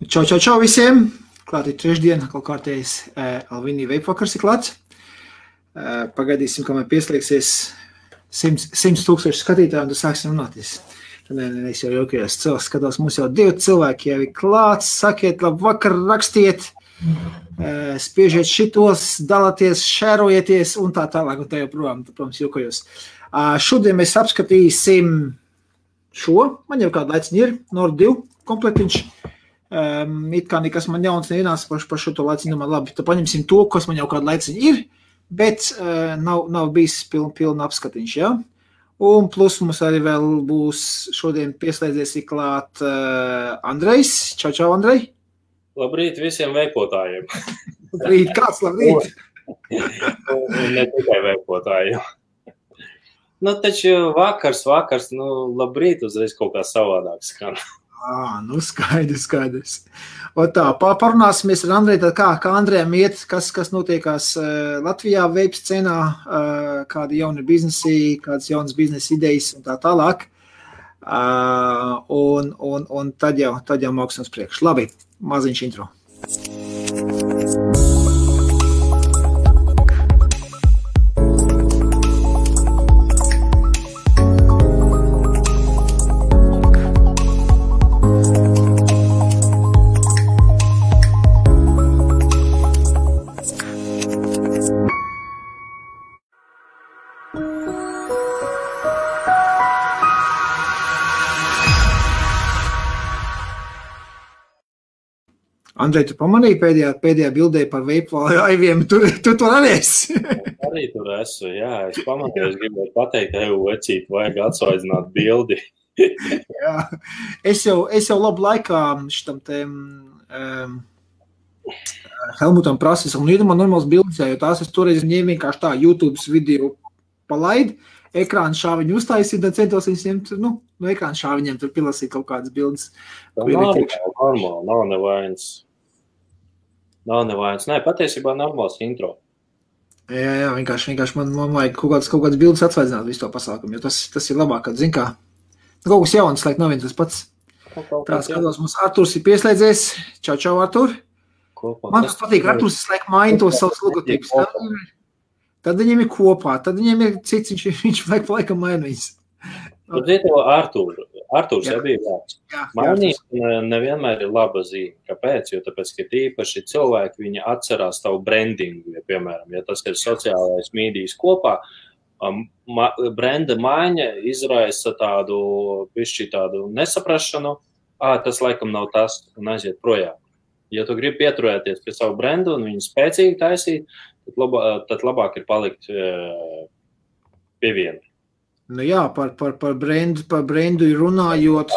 Čau visiem! Klāt ir trešdiena, kaut kārtējais Alvinī veipvakars ir klāts. Pagaidīsim, kamēr pieslēgsies 100,000 skatītāji, un tad sāksim runāties. Es jau jokajos skatos, mums jau 2 cilvēki jau ir klāts. Sakiet, labvakar, rakstiet, spiežiet šitos, dalāties, šērojieties un tā tālāk, un tā joprojām, protams, jokajos. Šodien mēs apskatīsim šo, man jau kāda laiciņa ir, Nord 2 komplektiņš. It kā nekas man jauns neienāca par šo to laiciņu, man labi, tad paņemsim to, kas man jau kāda laiciņa ir, bet nav bijis pilna apskatiņš, ja? Un plus mums arī vēl būs šodien pieslēdzies klāt Andrejs. Čau, Andrej. Labrīt visiem veipotājiem. Labrīt, kāds labrīt? Ne tikai veipotājiem. Taču vakars, labrīt uzreiz kaut kā savādāk skan. Skaidrs. Un tā, parunāsimies ar Andreju, tad kā Andrejam iet, kas notiekās Latvijā veips scenā, kādi jauni biznesi, kādas jaunas biznesa idejas un tā tālāk. Un tad jau māksim uz priekšu. Labi, maziņš intro. Andrej, tu pamanīji pēdējā bildē par veipu aiviem, tu tur arī esi? Arī tur esmu, jā, es pamanīju, es gribēju pateikt, vecīt, vajag atsvaidzināt bildi. Jā, es jau labu laikā šitam te Helmutam prasis, un ir man normāls bildes, jo tās es toreiz ņēmu vienkārši tā YouTube video palaid, ekrāna šāviņu uztaisīt, un centos viņus ņemt, no ekrāna šāviņiem tur pilasīt kaut kādas bildes. Nav nevainas. Nē, patiesībā normāls intro. Jā, vienkārši man vajag kaut kādas bildes atsvaidzināt visu to pasākumu, jo tas ir labāk, kad zin kā. Kaut kas jauns, laik nav viens tas pats. Tā skatos, mums Arturs ir pieslēdzies. Čau, Artur. Man tas patīk, Arturs laik maina tos savus logotipus. Tad viņiem ir kopā, tad viņiem ir cits, viņš laik pa laikam maina viņas. Arturs jau bija vārds. Mainīt nevienmēr ir laba zīme. Kāpēc? Jo tāpēc, ka tīpaši cilvēki, viņi atcerās tavu brandingu, ja, piemēram, ja tas ir sociālais mīdijas kopā, brenda maiņa izraisa tādu nesaprašanu, tas laikam nav tas, un aiziet projām. Ja tu gribi pieturēties pie savu brendu un viņu spēcīgi taisīt, tad labāk ir palikt pie viena. Nu jā, par brendu runājot,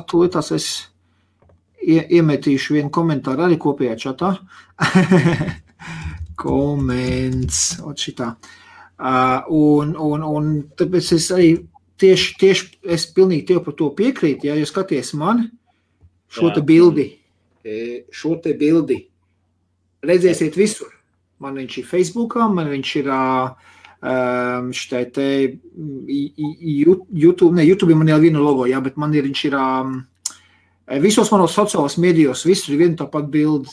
tūlītās es iemetīšu vienu komentāru arī kopējā čatā. Koments, šitā. Un tāpēc es arī tieši es pilnīgi tev par to piekrītu, ja skaties man šo te bildi, redzēsiet visur. Man viņš ir Facebookā, man viņš ir šitai te YouTube, YouTube man jau viena logo, jā, bet man viņš ir visos manos sociālos medijos, visur ir viena tāpat bildi,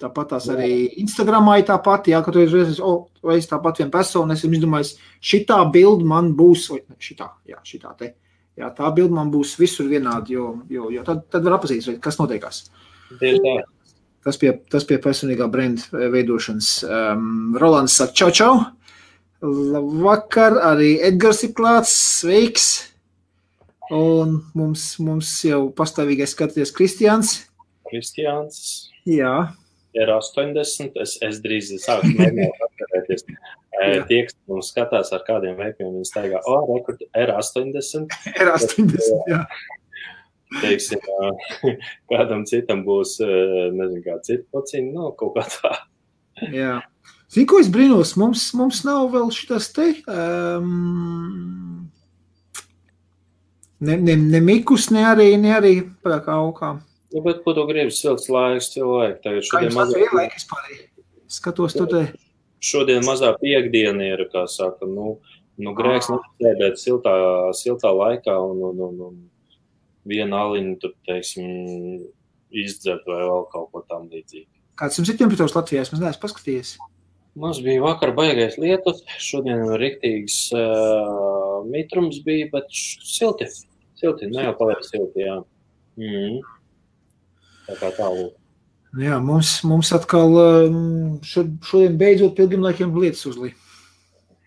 tāpat tās arī Instagramā ir tāpat, jā, ka tu reiz tāpat viena persona, es izdomāju, šitā bildi man būs, šitā te, jā, tā bildi man būs visur vienādi, jo tad var apazīt, kas notiekās. Tas pie personīgā brenda veidošanas. Rolands saka, čau. Labvakar, arī Edgars ir klāts, sveiks. Un mums jau pastāvīgais skaties Kristiāns. Jā. Ir 80, es drīz sāku mēģināt atkarēties. Tie, kas mums skatās ar kādiem veipiem, viņi staigā, rekord R80. R80, jā. Teiksim, kādam citam būs, nezinu, kā cita pociņa, kaut kā tā. Jā. Zini, ko es brīnos? Mums nav vēl šitas te, ne mikus, ne arī kā aukā. Bet, ko tu gribi, silts laiks, cilvēki? Kā jums tāds vienlaikis pārī? Skatos tu te. Šodien mazā piekdiena ir, kā saka, grēks nesēdēt siltā laikā un vienu aliņu tur, teiksim, izdzert vai vēl kaut ko tam līdzīgi. Kāds jums ir temperatūras Latvijā? Es neesmu paskatījies. Mums bija vakar baigais lietus, šodien riktīgs mitrums bija, bet silti, ne jau paliek silti, jā. Tā kā tālūk. Jā, mums atkal šodien beidzot pilgrim laikiem lietas uzlī.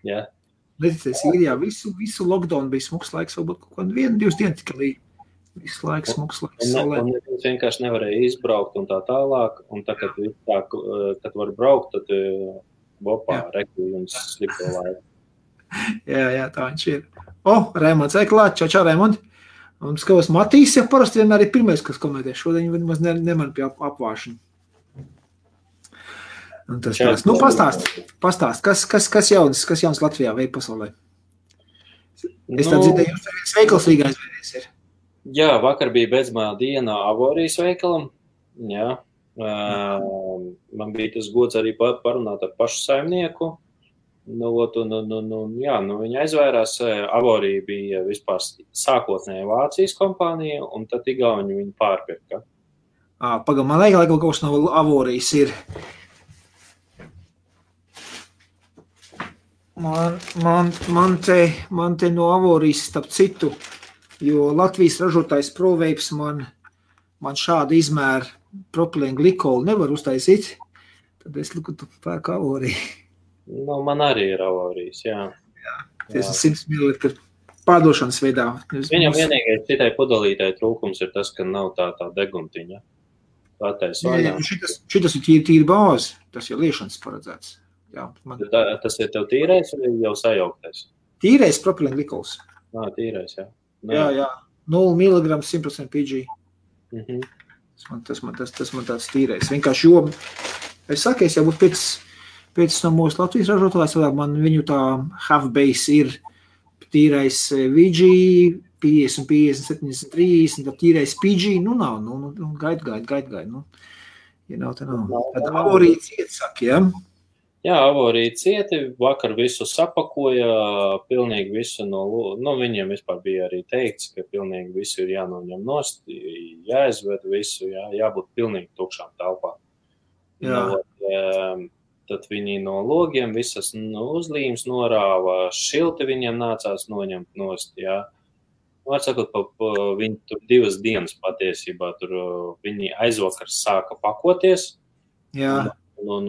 Jā. Neticēs, Īrijā visu lockdown bija smuks laiks, varbūt kaut kādu 1-2 dienas tikai līdz. Visu laiku smuks laiks. Un vienkārši nevarēja izbraukt un tā tālāk, un tā, kad var braukt, tad rekli jums slikto laiku. Jā, tā viņš ir. Raimonds, klāt, čau, Raimond. Un skatos, Matīs, ja parasti vienmēr ir pirmais, kas komentē. Šodien viņi maz neman pie apvāšana. Un tas tās. Nu, pastāst, kas jauns Latvijā veik pasaulē? Es tā dzirdēju, jums tā viens veikals Rīgā aizvērties ir. Jā, vakar bija beidzamā diena Avorijas veikalam. Jā. Man bija tas gods arī parunāt ar pašu saimnieku. Viņa aizvērās. Avorija bija vispār sākotnēji Vācijas kompānija, un tad Igauņi viņu pārpirka. Pagam, man liekas, kaut kas no Avorijas ir. Man te no Avorijas starp citu, jo Latvijas ražotājs ProVapes man šādu izmēru propilēnu glikolu nevar uztaisīt, tad es liku pērku Avoriju. Man arī ir Avorijas, jā. Tas ir 100 ml pārdošanas veidā. Viņam vienīgais citai pudelītai trūkums ir tas, ka nav tā deguntiņa. Šitas ir tīri bāzi, tas ir liešanas paredzēts. Jā, tas ir tev tīrais vai jau sajauktais? Tīrais propilēnu glikols. Tīrais, jā. Jā, 0 mg 100% PG. Tas man tāds tīrais. Vienkārši, jo es saku, es jau būtu pēc no mūsu Latvijas ražotājs, man viņu tā half-base ir tīrais VG, 50, 70, 30, tad tīrais PG, nav, gaid. Ja nav, tad nav. Tad Avorija ciet, saka, jā? Jā, Avorija cieti, vakar visu sapakoja, pilnīgi visu viņiem vispār bija arī teikts, ka pilnīgi visu ir jānoņem nost, jāizved visu, jābūt pilnīgi tukšām telpām. Tad viņi no logiem visas uzlīmes norāva, šilti viņiem nācās noņemt nost, jā. Var sakot, viņi tur 2 dienas patiesībā, tur viņi aizvakar sāka pakoties. Jā. Un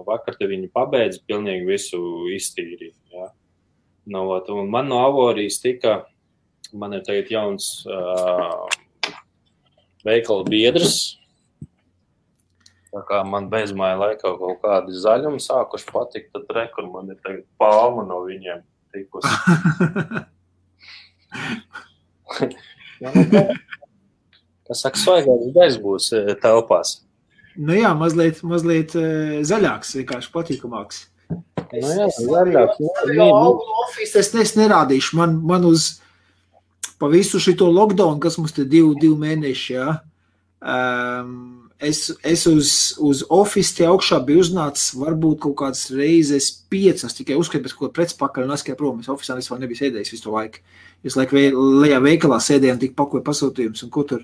vakar te viņi pabeidz pilnīgi visu iztīrīt, jā. Un man no Avorijas man ir tagad jauns veikala biedrs. Tā kā man bezmāja laikā kaut kādi zaļumi sākuši patikt, tad rekur man ir tagad palma no viņiem tikusi. Kas saka, svaigāks bez būs telpās. Jā, mazliet zaļāks, vienkārši patīkamāks. Jā, zaļāks. Office es nerādīšu. Man uz pa visu šito lockdown, kas mums te 2 mēneši, jā, es uz Office te augšā biju uznācis varbūt kaut kādas reizes 5, tikai uzskatu pēc kaut kāda pretspakaļ un aizskāju prom. Es Office'ā vispār nebiju sēdējis visu to laiku. Es lejā veikalā sēdēju un tik pakoju pasūtījumus un ko tur.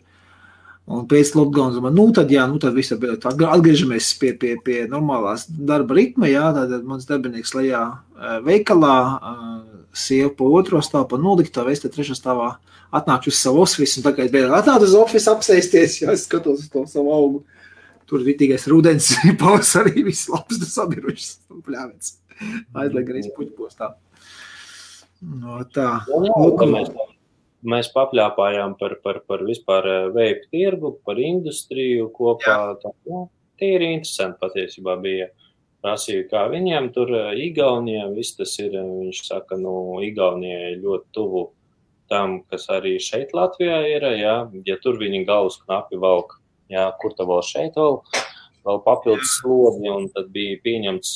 Un pēc lockdowns man, tad viss atgriežamies pie normālās darba ritma, jā, tad mans darbinieks lejā veikalā, sieva pa 2. stāvu, pa noliktavā, es te 3. stāvā atnākšu uz savu office, un tagad beidzot atnācu uz office apsēsties, jā, es skatos uz to savu augu. Tur vitīgais rudens, pavasarī viss labs, sabirušas, pļāvens. Aizliek arī puķpostā. Tā. Mēs papļāpājām par vispār veipu tirgu, par industriju kopā. Tīri interesanti patiesībā bija. Prasīju, kā viņiem tur Igaunijā, viss tas ir, viņš saka, Igaunijai ļoti tuvu tam, kas arī šeit Latvijā ir, jā, ja tur viņi galvas knapi valk, jā, kur tā vēl šeit vēl papildus slodi, un tad bija pieņemts,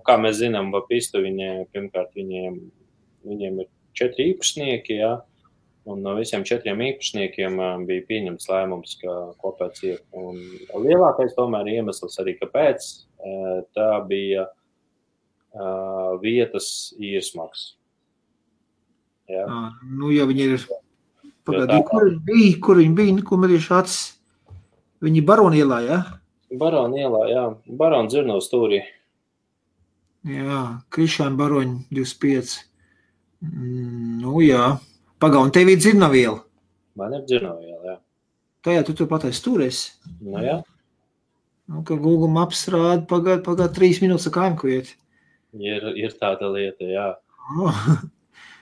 kā mēs zinām, Vapistu pirmkārt viņiem ir 4 īpašnieki, jā. Un no visiem 4 īpašniekiem bija pieņemts lēmums, ka kopēc ir. Un lielākais tomēr iemesls arī, kāpēc tā bija vietas īrsmaks. Ja viņi ir Pagaidī, kur viņi bija, ko medīšu acis? Viņi Barona ielā, ja? Barona ielā, jā. Barona Dzirno stūrī. Jā, Krišāna Baroņa 25. Nu, jā. Un tev ir Dzirnava iela? Man ir Dzirnava iela, jā. Tajā tu patais stūries? Nu, jā. Nu, ka Google Maps rāda pagād 3 minūtes kājām, ko iet. Ir tāda lieta, jā.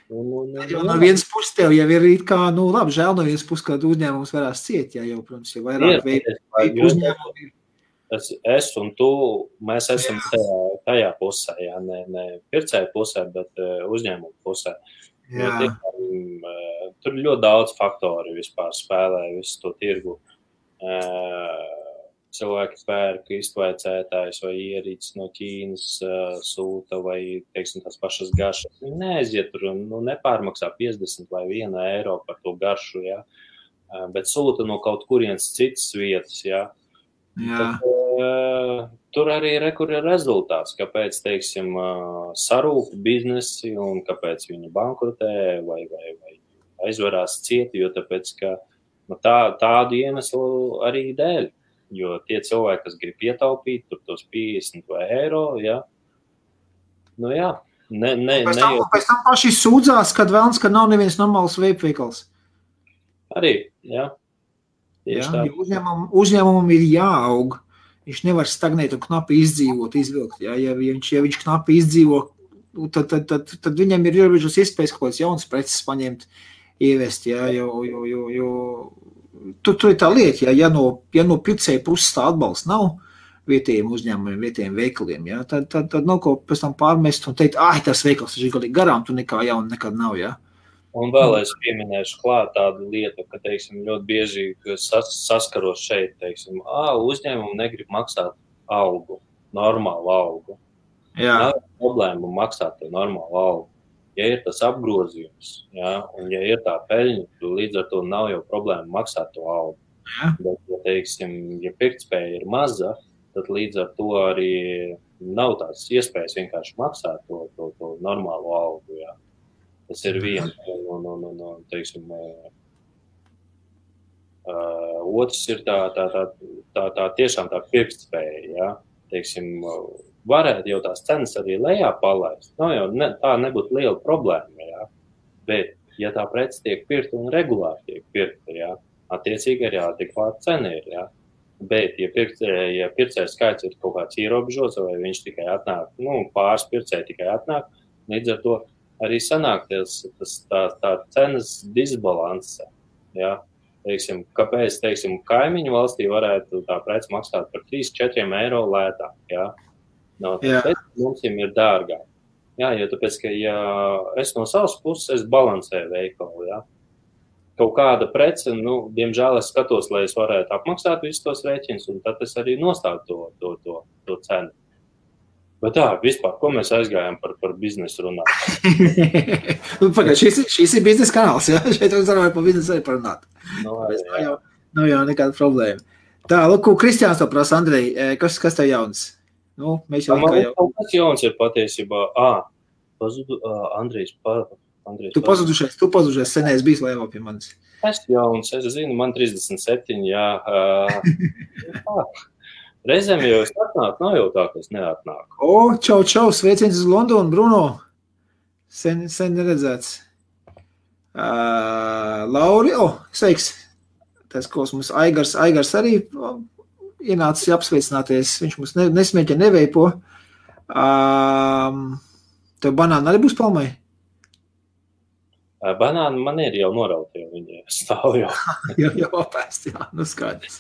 No vienas puses tev jau ir kā, nu labi, žēl no vienas puses, kādu uzņēmums varās ciet, jā, jau, protams, jau vairāk veidu uzņēmumu ir. Es un tu, mēs esam tajā pusē, jā, ne pircēju pusē, bet uzņēmumu pusē. Tur ļoti daudz faktori vispār spēlē visu to tirgu. Cilvēki pērk iztvaicētājs vai ierīces no Ķīnas sūta vai, teiksim, tās pašas garšas. Viņi neaiziet tur un nepārmaksā 50 vai 1 eiro par to garšu, jā. Bet sūta no kaut kurienes citas vietas, jā. Tad, tur arī ir rezultāts, kāpēc, teiksim, sarūp biznesi un kāpēc viņi bankrotē vai aizvarās cieti, jo tāpēc, ka tādu iemeslu arī dēļ. Jo tie cilvēki, kas grib ietaupīt, tur tos 50 vai eiro, jā. Nu jā. Pēc tam paši sūdzās, kad vēlns, ka nav neviens normāls veikals. Arī, jā. Jā, uzņēmumam ir jāaug. Viņš nevar stagnēt un knapi izdzīvot, izvilkt. Jā. Ja viņš knapi izdzīvo, tad viņam ir ierobežotas iespējas kaut kāds jauns preces paņemt, ievest, jā, jo tur ir tā lieta, ja no pircēja puses tā atbalsts nav vietējiem uzņēmumiem, vietējiem veikaliem, ja, tad nav ko pēc tam pārmest un teikt, tas veikals ir galīgi garām, tu nekā jauna nekad nav, ja. Un vēl es pieminēšu klāt tādu lietu, ka, teiksim, ļoti bieži saskaros šeit, teiksim, uzņēmumi negrib maksāt algu, normālu algu. Jā. Nav problēma maksāt to normālu algu. Ja ir tas apgrozījums, ja, un ja ir tā peļņa, līdz ar to nav jau problēma maksāt to algu. Ja. Bet, ja, teiksim, ja pirktspēja ir maza, tad līdz ar to arī nav tās iespējas vienkārši maksāt to normālo algu. Ja. Tas ir viens no teiksim, otrs ir tā tiešām tā pirktspēja, ja, teiksim, varētu jau tās cenas arī lejā palaist. Tā nebūtu liela problēma, jā. Bet, ja tā prece tiek pirkta un regulāri tiek pirkta, jā, attiecīgi arī adekvāta cena ir, jā. Bet, ja pircēja skaits ir kaut kāds ierobežots, vai viņš tikai atnāk, pāris pircēji tikai atnāk, līdz ar to arī sanāk tā cenas disbalanse, jā. Teiksim, kāpēc, teiksim, kaimiņu valstī varētu tā prece maksāt par 3-4 eiro lētāk, jā. Tāpēc mums ir dārgāk. Jā, jo tāpēc, ka ja es no savas puses, es balansēju veikalu, jā. Kaut kāda prece, diemžēl es skatos, lai es varētu apmaksāt visus tos rēķinus, un tad es arī nostādu to cenu. Bet vispār, ko mēs aizgājām par biznesu runāt? Pagad, šis ir biznesa kanāls, jā? Šeit mēs varam par biznesu arī parunāt. Nav jau nekāda problēma. Tā, lūk, Kristiāns to prasa, Andrej, kas tev jauns? Mēs jau kas jauns ir patiesībā. Andrejs. Tu pazudušies, senēs bijis laivā pie manis. Es jauns, es zinu, man 37, jā. Reizēm jau es atnāku, nav jau tā, ka es neatnāku. Čau, sveiciens uz Londonu, Bruno. Sen neredzēts. Lauri, sveiks. Tas, ko mums Aigars arī ienācis apsveicināties, viņš mums nesmēķa neveipo. Tev banāni arī būs palmai? Banāni man ir jau norauti, jo viņi stāv jau. jau apēst, jā, skaidrs.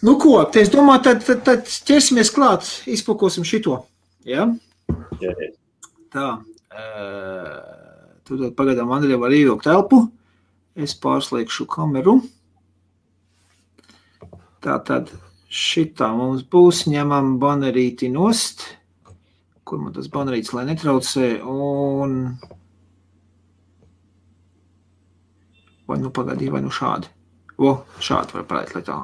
Ko, es domāju, tad ķersimies klāt, izpakosim šito, jā? Jā. Tā, tu pagaidām Andrija var ievilkt telpu, es pārslēgšu kameru. Tātad šitā mums būs, ņemam banerīti nost, kur man tas banerītis, lai netraucē, un vai šādi. Šādi var parādīt, lai tā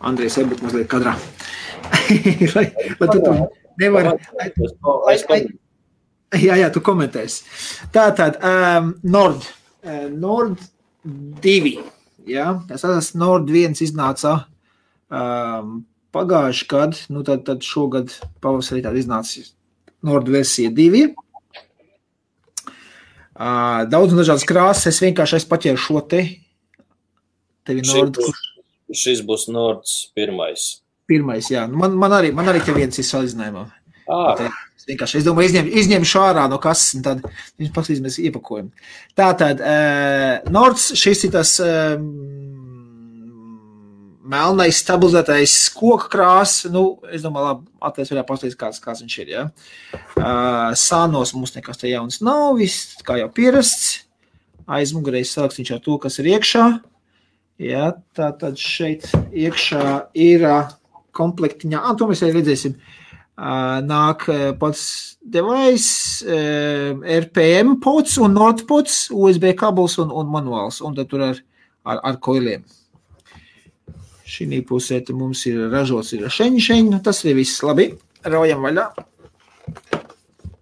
Andrejs būt mazliet kadrā. lai tu nevar... Jā, tu komentēsi. Tātad, Nord 2. Ja? Tas Nord 1 iznāca pagājuši gadu, nu tad šogad pavasarī tāda iznāca Nord versija 2. Daudz un dažādas krāsas, es vienkārši paķēru šo tevi Nord. Šis būs Nords 1. Pirmais, jā. Man arī te viens ir salīdzinājumā. Es domāju, izņemšu ārā no kases, un tad viņš paskatīsimies iepakojumu. Tātad, Nords, šis ir tas melnais stabilizētais koka krās. Nu, es domāju, labi, atliec varētu paskatīties, kāds viņš ir, ja. Sānos mums nekas te jauns nav, viss, kā jau pierasts. Aizmugurēs sarakstīšu ar to, kas ir iekšā. Ja, tātad šeit iekšā ir komplektiņā, to mēs arī redzēsim, nāk pats device, RPM pods un Nord pods, USB kabels un manuāls, un tad tur ar koiliem. Šī pusē mums ir ražots šeņi, tas ir viss labi, raujam vaļā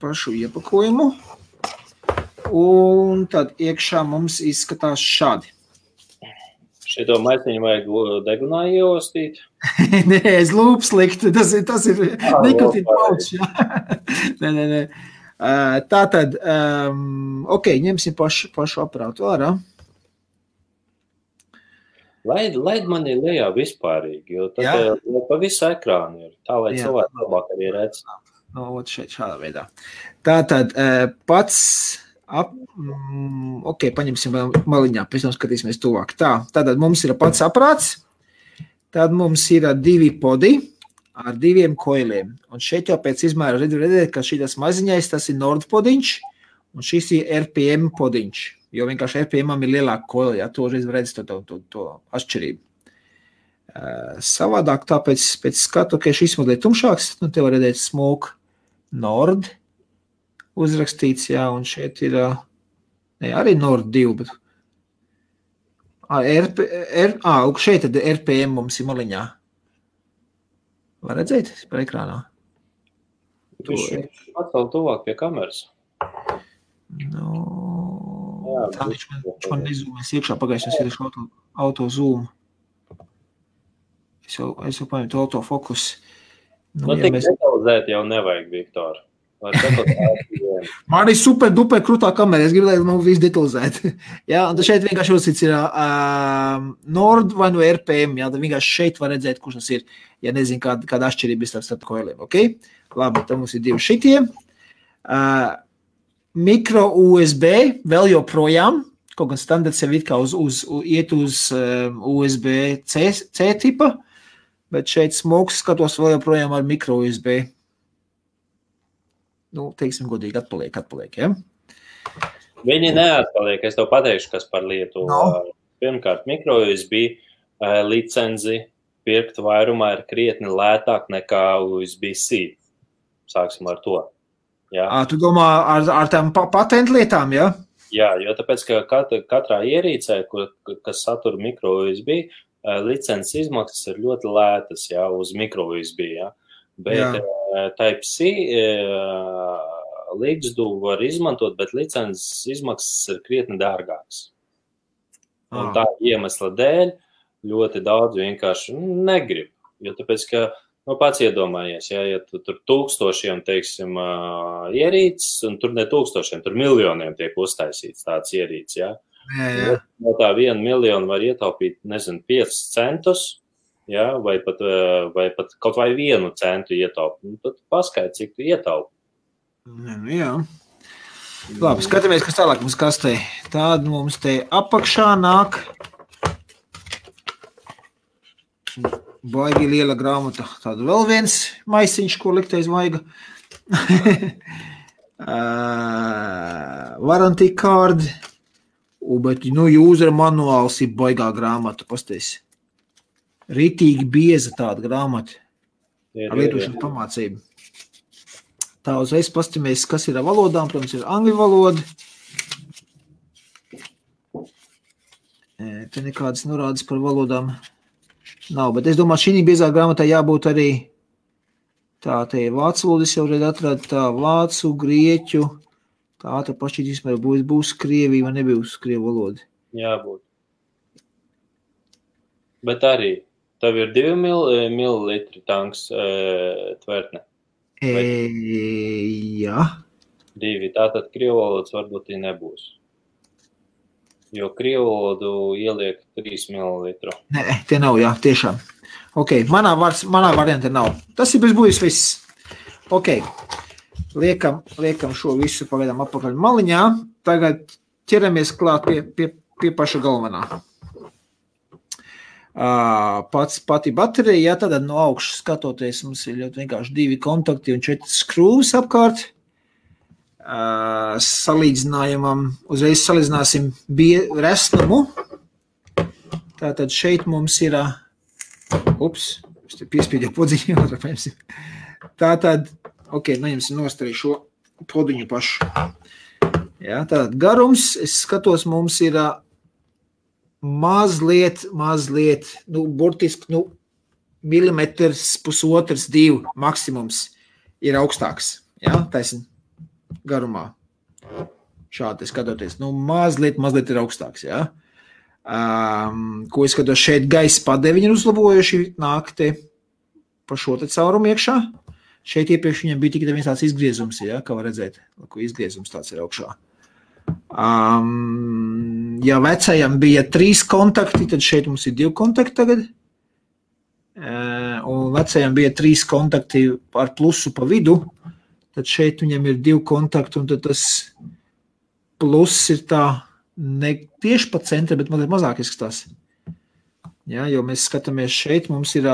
pašu iepakojumu, un tad iekšā mums izskatās šādi. Šito maisiņu vajag degunā ieostīt? Nē, es lūps likt, tas ir nikotīna paučs. Nē. Tātad, ņemsim pašu aparātu ārā. Laid mani lejā vispārīgi, jo tad pa visu ekrānu ir, tā lai cilvēki labāk arī redz. No, šeit šādā veidā. Tātad, pats... paņemsim maliņā, pēc tam skatīsimies tuvāk. Tātad mums ir pats aprāts, tad mums ir 2 podi ar 2 koiliem. Un šeit jau pēc izmēra redzēt, ka šitas maziņais, tas ir Nord podiņš, un šis ir RPM podiņš, jo vienkārši RPM-am ir lielāka koila, ja to reiz redz to atšķirību. Savādāk tāpēc pēc skatu, ka šis modēļ tumšāks, nu te var redzēt Smoke Nord, uzrakstīts, jā, un šeit ir arī Nord 2, bet šeit tad RPM mums ir maliņā. Var redzēt par ekrānā? Viņš atkal tuvāk pie kameras. Tā viņš man nezūmēs iekšā, pagājuši es auto zoom. Es jau paņemtu autofokus. Tik detalizēt jau nevajag, Viktor. Man ir super duper krūtā kamera, es gribu, lai man viss detalizēt. Ja, un šeit vienkārši uzsits ir Nord vai no RPM, ja, tad vienkārši šeit var redzēt, kurš tas ir, ja nezinu, kāda atšķirība ir starp koiliem, ok? Labi, tad mums ir 2 šitie. Mikro USB vēl joprojām, kaut gan standarts jau it kā iet uz USB-C tipa, bet šeit smoks skatos vēl joprojām ar mikro USB. Nu, teiksim, godīgi atpaliek, ja? Viņi neatpaliek, es tev pateikšu, kas par lietu. Pirmkārt, mikro USB licenzi pirkt vairumā ir krietni lētāk nekā USB-C. Sāksim ar to. Ja? Tu domā ar tām patentu lietām, ja? Jā, jo tāpēc, ka katrā ierīcē, kas satura mikro USB, licences izmaksas ir ļoti lētas, ja, uz mikro USB, ja? Bet Type-C līgzdu var izmantot, bet licences izmaksas ir krietni dārgākas. Un tā iemesla dēļ ļoti daudz vienkārši negrib. Jo tāpēc, ka, pats iedomājies, ja tu tur tūkstošiem, teiksim, ierīces, un tur ne tūkstošiem, tur miljoniem tiek uztaisīts tāds ierīces, ja. No tā 1 miljonu var ietaupīt, 5 centus, ja, vai pat kaut vai 1 centu ietaupi. Tad paskaidri, cik tu ietaupi. Jā. Labi, skatāmies, kas tālāk mums kastē. Tāda mums te apakšā nāk baigi liela grāmata. Tāda vēl viens maisiņš, ko likt aiz vaiga. Warranty card. Bet, user manuāls ir baigā grāmata, pasties. Ritīgi bieza tāda grāmata ar lietošanas pamācību. Tā uzreiz pastamies, kas ir ar valodām. Protams, ir angļu valoda. Te nekādas norādes par valodām nav, bet es domāju, šī biezā grāmatā jābūt arī te ir vācu valodas jau redz atrada, tā vācu, grieķu, tā pašķīt vispār būs Krievija vai nebūs Krievu valoda. Jābūt. Bet arī tev ir 2 mililitri tanks tvertne. Jā. 2. Tātad krievu valodas varbūt nebūs. Jo krievu valodu ieliek 3 mililitru. Nē, tie nav, jā, tiešām. Ok, manā variantā nav. Tas ir bezbūjis viss. Ok, liekam šo visu pagaidām apakaļ maliņā. Tagad ķeramies klāt pie paša galvenā. Pati baterija, jā, tad no augšas skatoties, mums ir ļoti vienkārši 2 kontakti un 4 skrūvas apkārt. Salīdzinājumam, uzreiz salīdzināsim resnumu. Tātad šeit mums ir, es te piespīdēju podziņu, otrā paņemsim. Tātad, ok, neņemsim nost arī šo podiņu pašu. Jā, tātad garums, es skatos, mums ir mazliet, burtiski, milimetrs, pusotrs, 2 maksimums ir augstāks. Jā, taisn garumā. Šādi skatoties. Mazliet ir augstāks, jā. Ko es skatos šeit gaisa padeviņi ir uzlabojuši, nāk te pa šo te caurumu iekšā. Šeit iepriekš viņam bija tikai viens tāds izgriezums, jā, kā var redzēt, ko izgriezums tāds ir augšā. Ja vecajam bija 3 kontakti, tad šeit mums ir 2 kontakti tagad. Un vecajam bija 3 kontakti ar plusu pa vidu, tad šeit viņam ir 2 kontakti, un tad tas pluss ir tā ne tieši pa centra, bet mazāk izskatās. Ja, jo mēs skatāmies šeit, mums ir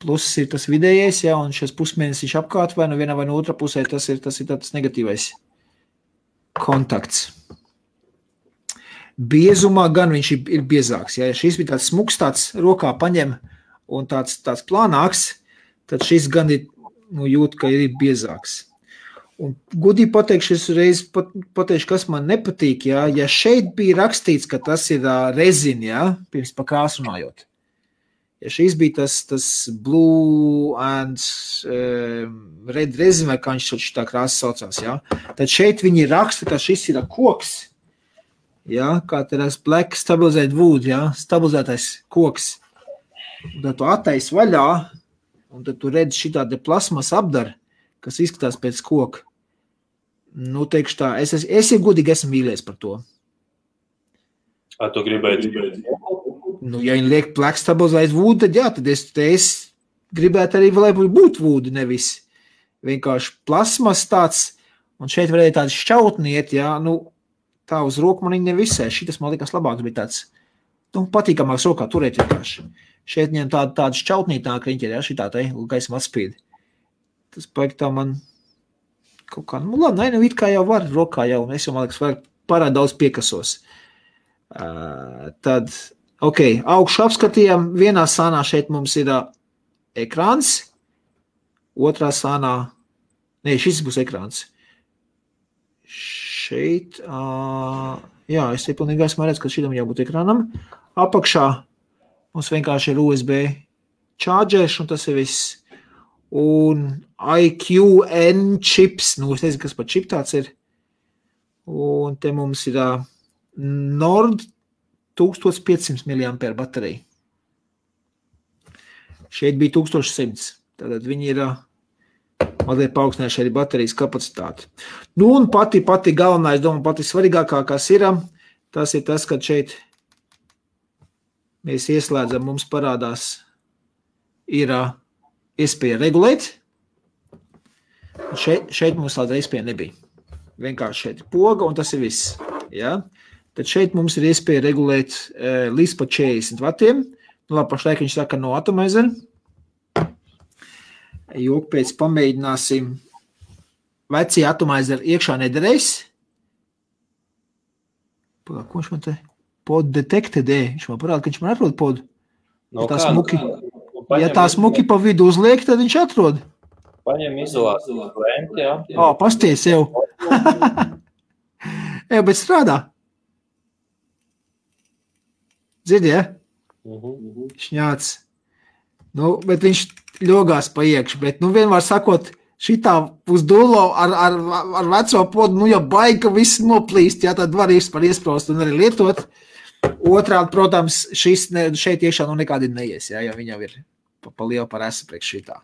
pluss ir tas vidējais, ja, un šis pusmēnesis apkārt vai no vienā vai no otrā pusē, tas ir tāds negatīvais kontakts. Biezumā gan viņš ir biezāks. Ja šis bija tāds smuks, tāds rokā paņem un tāds plānāks, tad šis gan ir, jūt, ka ir biezāks. Un gudīgi pateikšu, es reiz pateikšu, kas man nepatīk, ja šeit bija rakstīts, ka tas ir rezina, ja, pirms pa krāsu runājot. Ja šis bija tas blue and red resin, vai kā viņš tā krāsa saucās, ja, tad šeit viņi raksta, ka šis ir koks, ja, kā tas black stabilized wood, ja, stabilizētais koks. Un tad tu attais vaļā, un tad tu redzi šitā te plasmas apdara, kas izskatās pēc koka. Teikšu tā, es godīgi esmu mīlies par to. Tu gribēji? Ja viņi liek black stabilized wood, tad jā, tad es gribētu arī, lai būtu wood, nevis vienkārši plasmas tāds, un šeit varēja tāds šķautniet, jā, tā uz roku man viņi nevisē, šitas man likās labāks, bija tāds, patīkamāks rokā turēt vienkārši. Šeit viņam tāda šķautnītāk riņķi ir, jā, šitā te, gaisam atspīd. Tas paik tā man kaut kā, labi, it kā jau var, rokā jau, un es jau, man liekas, var parād daudz piekasos. Tad, ok, augšu apskatījām, vienā sānā šeit mums ir ekrāns, otrā sānā, šis būs ekrāns. Šeit, jā, es te pilnīgi esmu redz, ka šitam jābūt ekrānam. Apakšā mums vienkārši ir USB chargers, un tas ir viss. Un IQN čips, es nezinu, kas par čip tāds ir. Un te mums ir Nord 1500 mAh baterija. Šeit bija 1100. Tātad viņi ir mazliet paaugstinājuši arī baterijas kapacitāti. Un pati galvenā, es domāju, pati svarīgākā, kas ir, tas ir tas, ka šeit mēs ieslēdzam, mums parādās, ir iespēja regulēt. Šeit mums tāda iespēja nebija. Vienkārši šeit ir poga, un tas ir viss. Ja? Tad šeit mums ir iespēja regulēt līdz pa 40 vatiem. Pašlaik viņš saka no atomizer. Jok pēc pamēģināsim. Vecie atomizer iekšā nederēs. Ko viņš man te? Pod detected, viņš man parāda, ka viņš man atrod podu. Ja tā smuki pa vidu uzliek, tad viņš atrod. Paņem izolācijas lenti, jā. Pasties jau. Bet strādā. Dzirdi, ja? Šņāts. Bet viņš ļogās pa iekšu, bet, vienmēr sakot, šitā uz dullo ar veco podu, ja baigi, ka viss noplīst, jā, tad var iespraust un arī lietot. Otrādi, protams, šeit iekšā nekādi neies, ja viņi jau ir pa lielu par esu priekš šitā.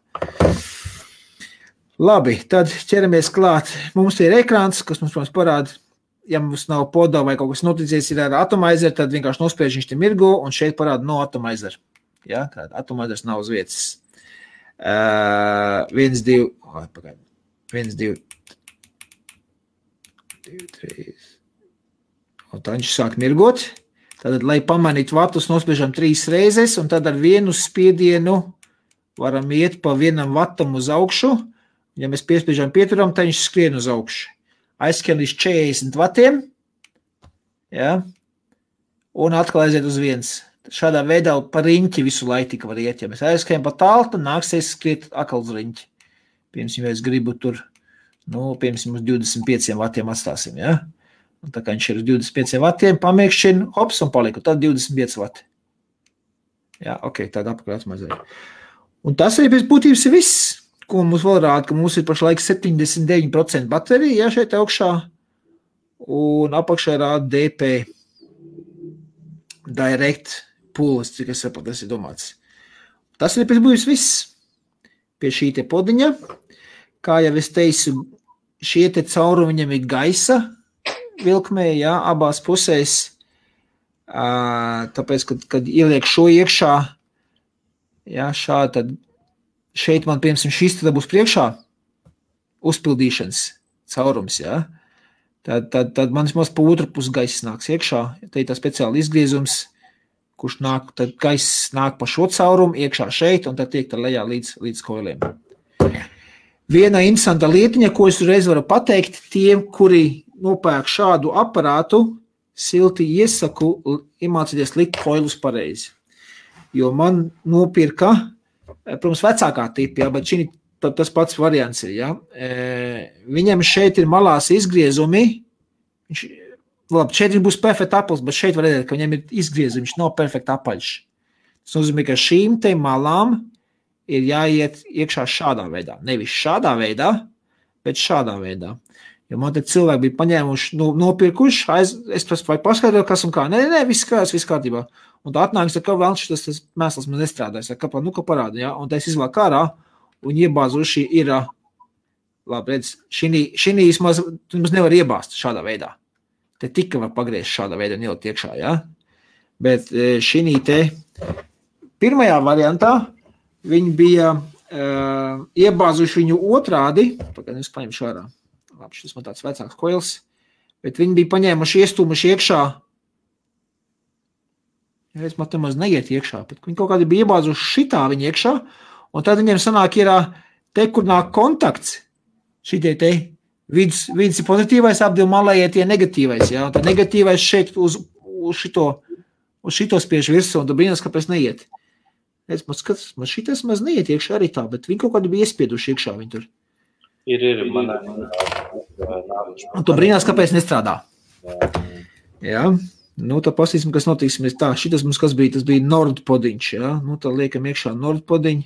Labi, tad ķeramies klāt. Mums ir ekrāns, kas mums, protams, parāda, ja mums nav podā vai kaut kas noticies ir ar atomizer, tad vienkārši nospiež viņš te mirgo, un šeit parāda no atomizer. Ja, tāda atomizers nav uz vietas. 1, 2, 2, 3. Un tā viņš sāk mirgot. Tad, lai pamanītu vatus, nospiežam 3 reizes, un tad ar vienu spiedienu varam iet pa 1 vatam uz augšu. Ja mēs piespiežam pieturam, tad viņš skrien uz augšu. Aizskrien līdz 40 vatiem. Ja, un atkal aiziet uz 1. Šādā veidā pa riņķi visu laiku tika var iet. Ja mēs aizskrien pa tālu, tad nāksies skriet atkal uz riņķi. Piemēram, ja es gribu tur, piemēram, uz 25 vatiem atstāsim, ja? Un tā kā viņš ir uz 25 vatiem, pamiekšķina, hops, un paliku, tad 25 vati. Jā, ok, tāda apakaļ atmazēja. Un tas arī pēc būtības ir viss, ko mums vēl rāda, ka mums ir pašlaik 79% baterija, ja, šeit augšā, un apakšā rāda DP, Direct Pools, cik es saprotu, tas ir domāts. Tas ir pēc būtības viss pie šī te podiņa. Kā jau es teicu, šie te caurumi viņam ir gaisa vilkmē, ja, abās pusēs, tāpēc, kad ieliek šo iekšā, ja, šādi, tad šeit man, piemēram, šis tad būs priekšā uzpildīšanas caurums, ja. Tad man vismaz pa otru pusi gaisa nāks iekšā. Te ir tā speciāli izgriezums, kurš nāk, tad gaisa nāk pa šo caurumu iekšā šeit, un tad tiek tā lejā līdz koiliem. Viena interesanta lietiņa, ko es uzreiz varu pateikt, tiem, kuri nopērk šādu aparātu, silti iesaku iemācīties likt koilus pareizi. Jo man nopirka, protams, vecākā tipa, ja, bet šī tas pats variants ir. Ja. Viņam šeit ir malās izgriezumi. Šeit būs perfekta aplis, bet šeit var redzēt, ka viņam ir izgriezumi. Viņš nav perfekta apaļš. Tas nozīmē, ka šīm te malām ir jāiet iekšā šādā veidā. Nevis šādā veidā, bet šādā veidā. Jo man te cilvēki bija paņēmuši, nopirkuši, es paskaidroju, kas un kā. Nē, viss kārtībā. Un tā atnāks, ka vēl tas mēsls man nestrādājas. Ka parāda, ja? Un tā es izlāku ārā. Un iebāzuši ir, labi, redz, šī vismaz nevar iebāzt šādā veidā. Te tika var pagriezt šādā veidā un ielikt iekšā, ja? Bet šī te pirmajā variantā viņi bija iebāzuši viņu otrādi, pagaidām es paņemšu ārā. Labi, šis man tāds vecāks koils, bet viņi bija paņēmuši iestūmuši iekšā. Es man te maz neiet iekšā, bet viņi kaut kādi bija iebāzuši šitā viņi iekšā. Un tad viņiem sanāk ir te, kur nāk kontakts, šitie te viens ir pozitīvais, ap divu malējie tie negatīvais, ja, un tad negatīvais šeit uz šito spiež virsū, un tad brīnās, kāpēc neiet. Es man skatos, man šitas maz neiet iekšā arī tā, bet viņi kaut kādi bija iespieduši iekšā viņi tur. Ir, manā. Un tu brīnās, kāpēc nestrādā. Jā. Tā pasīsim, kas notiksimies tā. Šitas mums kas bija, tas bija Nordpodiņš, ja. Tā liekam iekšā Nordpodiņu.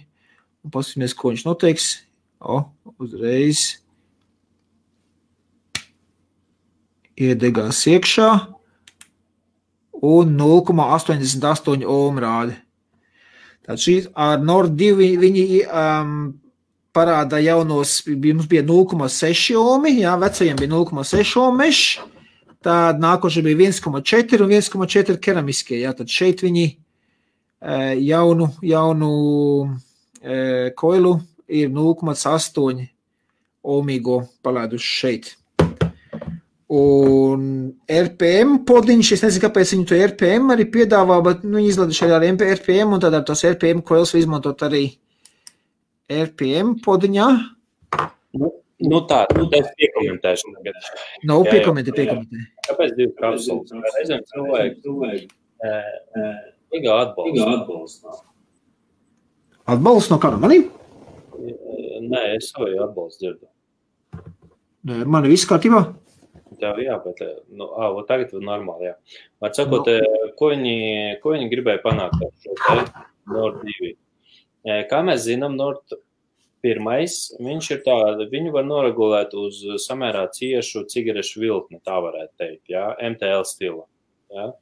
Un pasīsimies, ko viņš noteiks. Uzreiz iedegās iekšā un 0,88 ohm rādi. Tātad šī ar Nord 2 viņi parāda jaunos, mums bija 0,6 ohmi, jā, vecajiem bija 0,6 ohm mešs, tad nākoši bija 1,4 un 1,4 keramiskie, jā, tad šeit viņi jaunu koilu ir 0,8 ohmīgo palaiduši šeit. Un RPM podiņš, es nezinu, kāpēc viņi to RPM arī piedāvā, bet viņi izladuši arī ar RPM, un tad ar tos RPM koils izmantot arī RPM podiņā. Tā es piekomentēšu. Piekomentē. Kāpēc 2 kapsulas? Reizēm cilvēki atbalstu. Atbalsts no kāda manī? Nē, es savu atbalstu dzirdu. Nē, mani viss kārtībā? Tev jā, bet tagad ir normāli, jā. Atsakot, ko viņi gribēja panākt ar šo te Nord 2? Kā mēs zinām, Nord 1, viņš ir tāda, viņu var noregulēt uz samērā ciešu cigarešu vilkni, tā varētu teikt, jā, MTL stila, jā.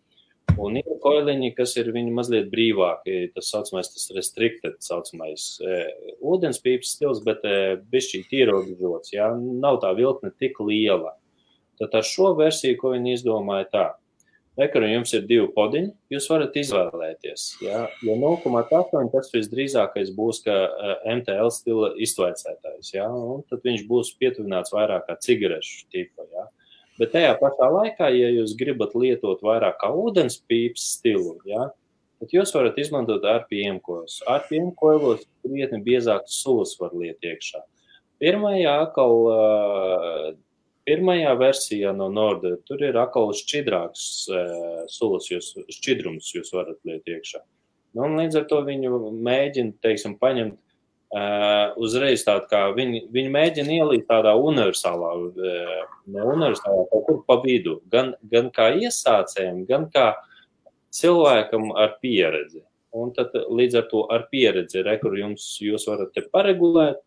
Un ir koiliņi, kas ir viņi mazliet brīvāki, tas saucamais, tas restricted, saucamais ūdenspīpas stils, bet bišķīt ierobežots, jā, nav tā viltne tik liela. Tad ar šo versiju, ko viņi izdomāja tā, kur jums ir 2 podiņi, jūs varat izvēlēties, jā, jo 0,8 tas visdrīzākais būs, ka MTL stila iztvaicētājs, jā, un tad viņš būs pietuvināts vairāk kā cigarešu tipa, jā. Bet tajā pašā laikā, ja jūs gribat lietot vairāk kā ūdenspīpas stilu, ja, tad jūs varat izmantot RPM koilus. RPM koilos krietni biezākas sulas var liet iekšā. Pirmajā versijā no Norda tur ir atkal šķidrāks sulas, šķidrums jūs varat liet iekšā. Nu, un līdz ar to viņu mēģina, teiksim, paņemt uzreiz tādu, kā viņi mēģina ielīt tādā universālā, kaut kur pa vidu, gan kā iesācējiem, gan kā cilvēkam ar pieredzi. Un tad līdz ar to ar pieredzi, kur jūs varat te paregulēt,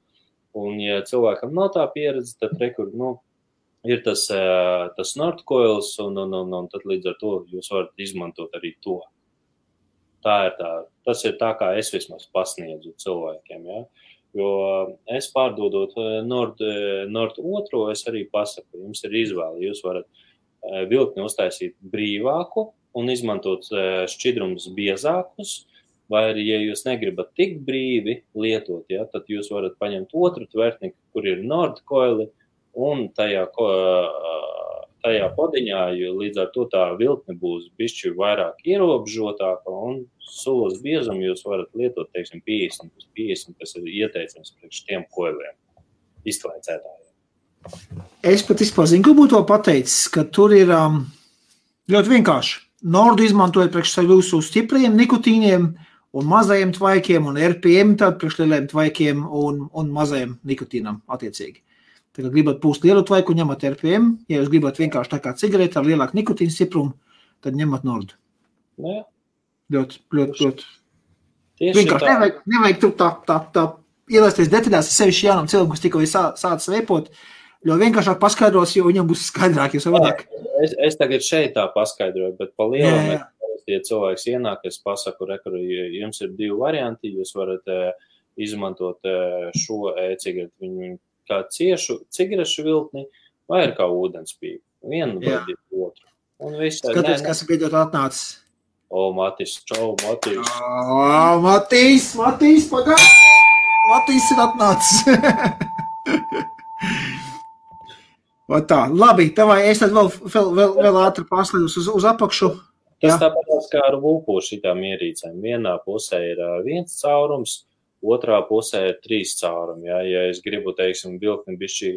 un ja cilvēkam nav tā pieredze, tad ir tas Nordcoils, un tad līdz ar to jūs varat izmantot arī to. Tas ir tā, kā es vismaz pasniedzu cilvēkiem, ja? Jo es pārdodot Nord 2, es arī pasaku, jums ir izvēle, jūs varat viltni uztaisīt brīvāku un izmantot šķidrumus biezākus, vai arī, ja jūs negribat tik brīvi lietot, ja, tad jūs varat paņemt otru tvertni, kur ir Nord coili, un tajā podiņā, jo līdz ar to tā viltne būs bišķi vairāk ierobežotāka, un sulas biezumu jūs varat lietot, teiksim, 50, kas ir ieteicams priekš tiem koiliem, iztvaicētājiem. Es pat izpazinu, ko būtu pateicis, ka tur ir ļoti vienkārši. Nordu izmantojot priekš jūsu stipriem nikotīniem un mazajiem tvaikiem, un RPM tad priekš lieliem tvaikiem un mazajiem nikotīnam attiecīgi. Tad, kad gribat pūst lielu tvaiku, ņemat RPM. Ja jūs gribat vienkārši tā kā cigareti ar lielāku nikotīnu stiprumu, tad ņemat Nordu. Jā. Ļoti. Vienkārši nevajag tur tā ielaisties detaļās, sevišķi jaunam cilvēkam, kas tikko sācis veipot, jo vienkāršāk paskaidros, jo viņam būs skaidrāk, jo savādāk. Es tagad šeit tā paskaidroju, bet pa lielam, ja cilvēks ienāk, es pasaku, jums ir 2 varianti, jūs varat izmantot šo e-cigareti, viņu kā ciešu cigarešu viltni, vai ir kā ūdenspīpa. Vienu vai otru. Un viss. Skaties, kas ir beidzot atnācis. Matis, čau, Matis. Matis, pagāj! Matis ir atnācis. Tā, labi, tavai, es tad vēl ātri paslīdus uz apakšu. Tas tāpēc kā ar vulpu šitām ierīcēm. Vienā pusē ir 1 caurums, otrā pusē ir 3 caurumi. Ja es gribu, teiksim, viltni bišķi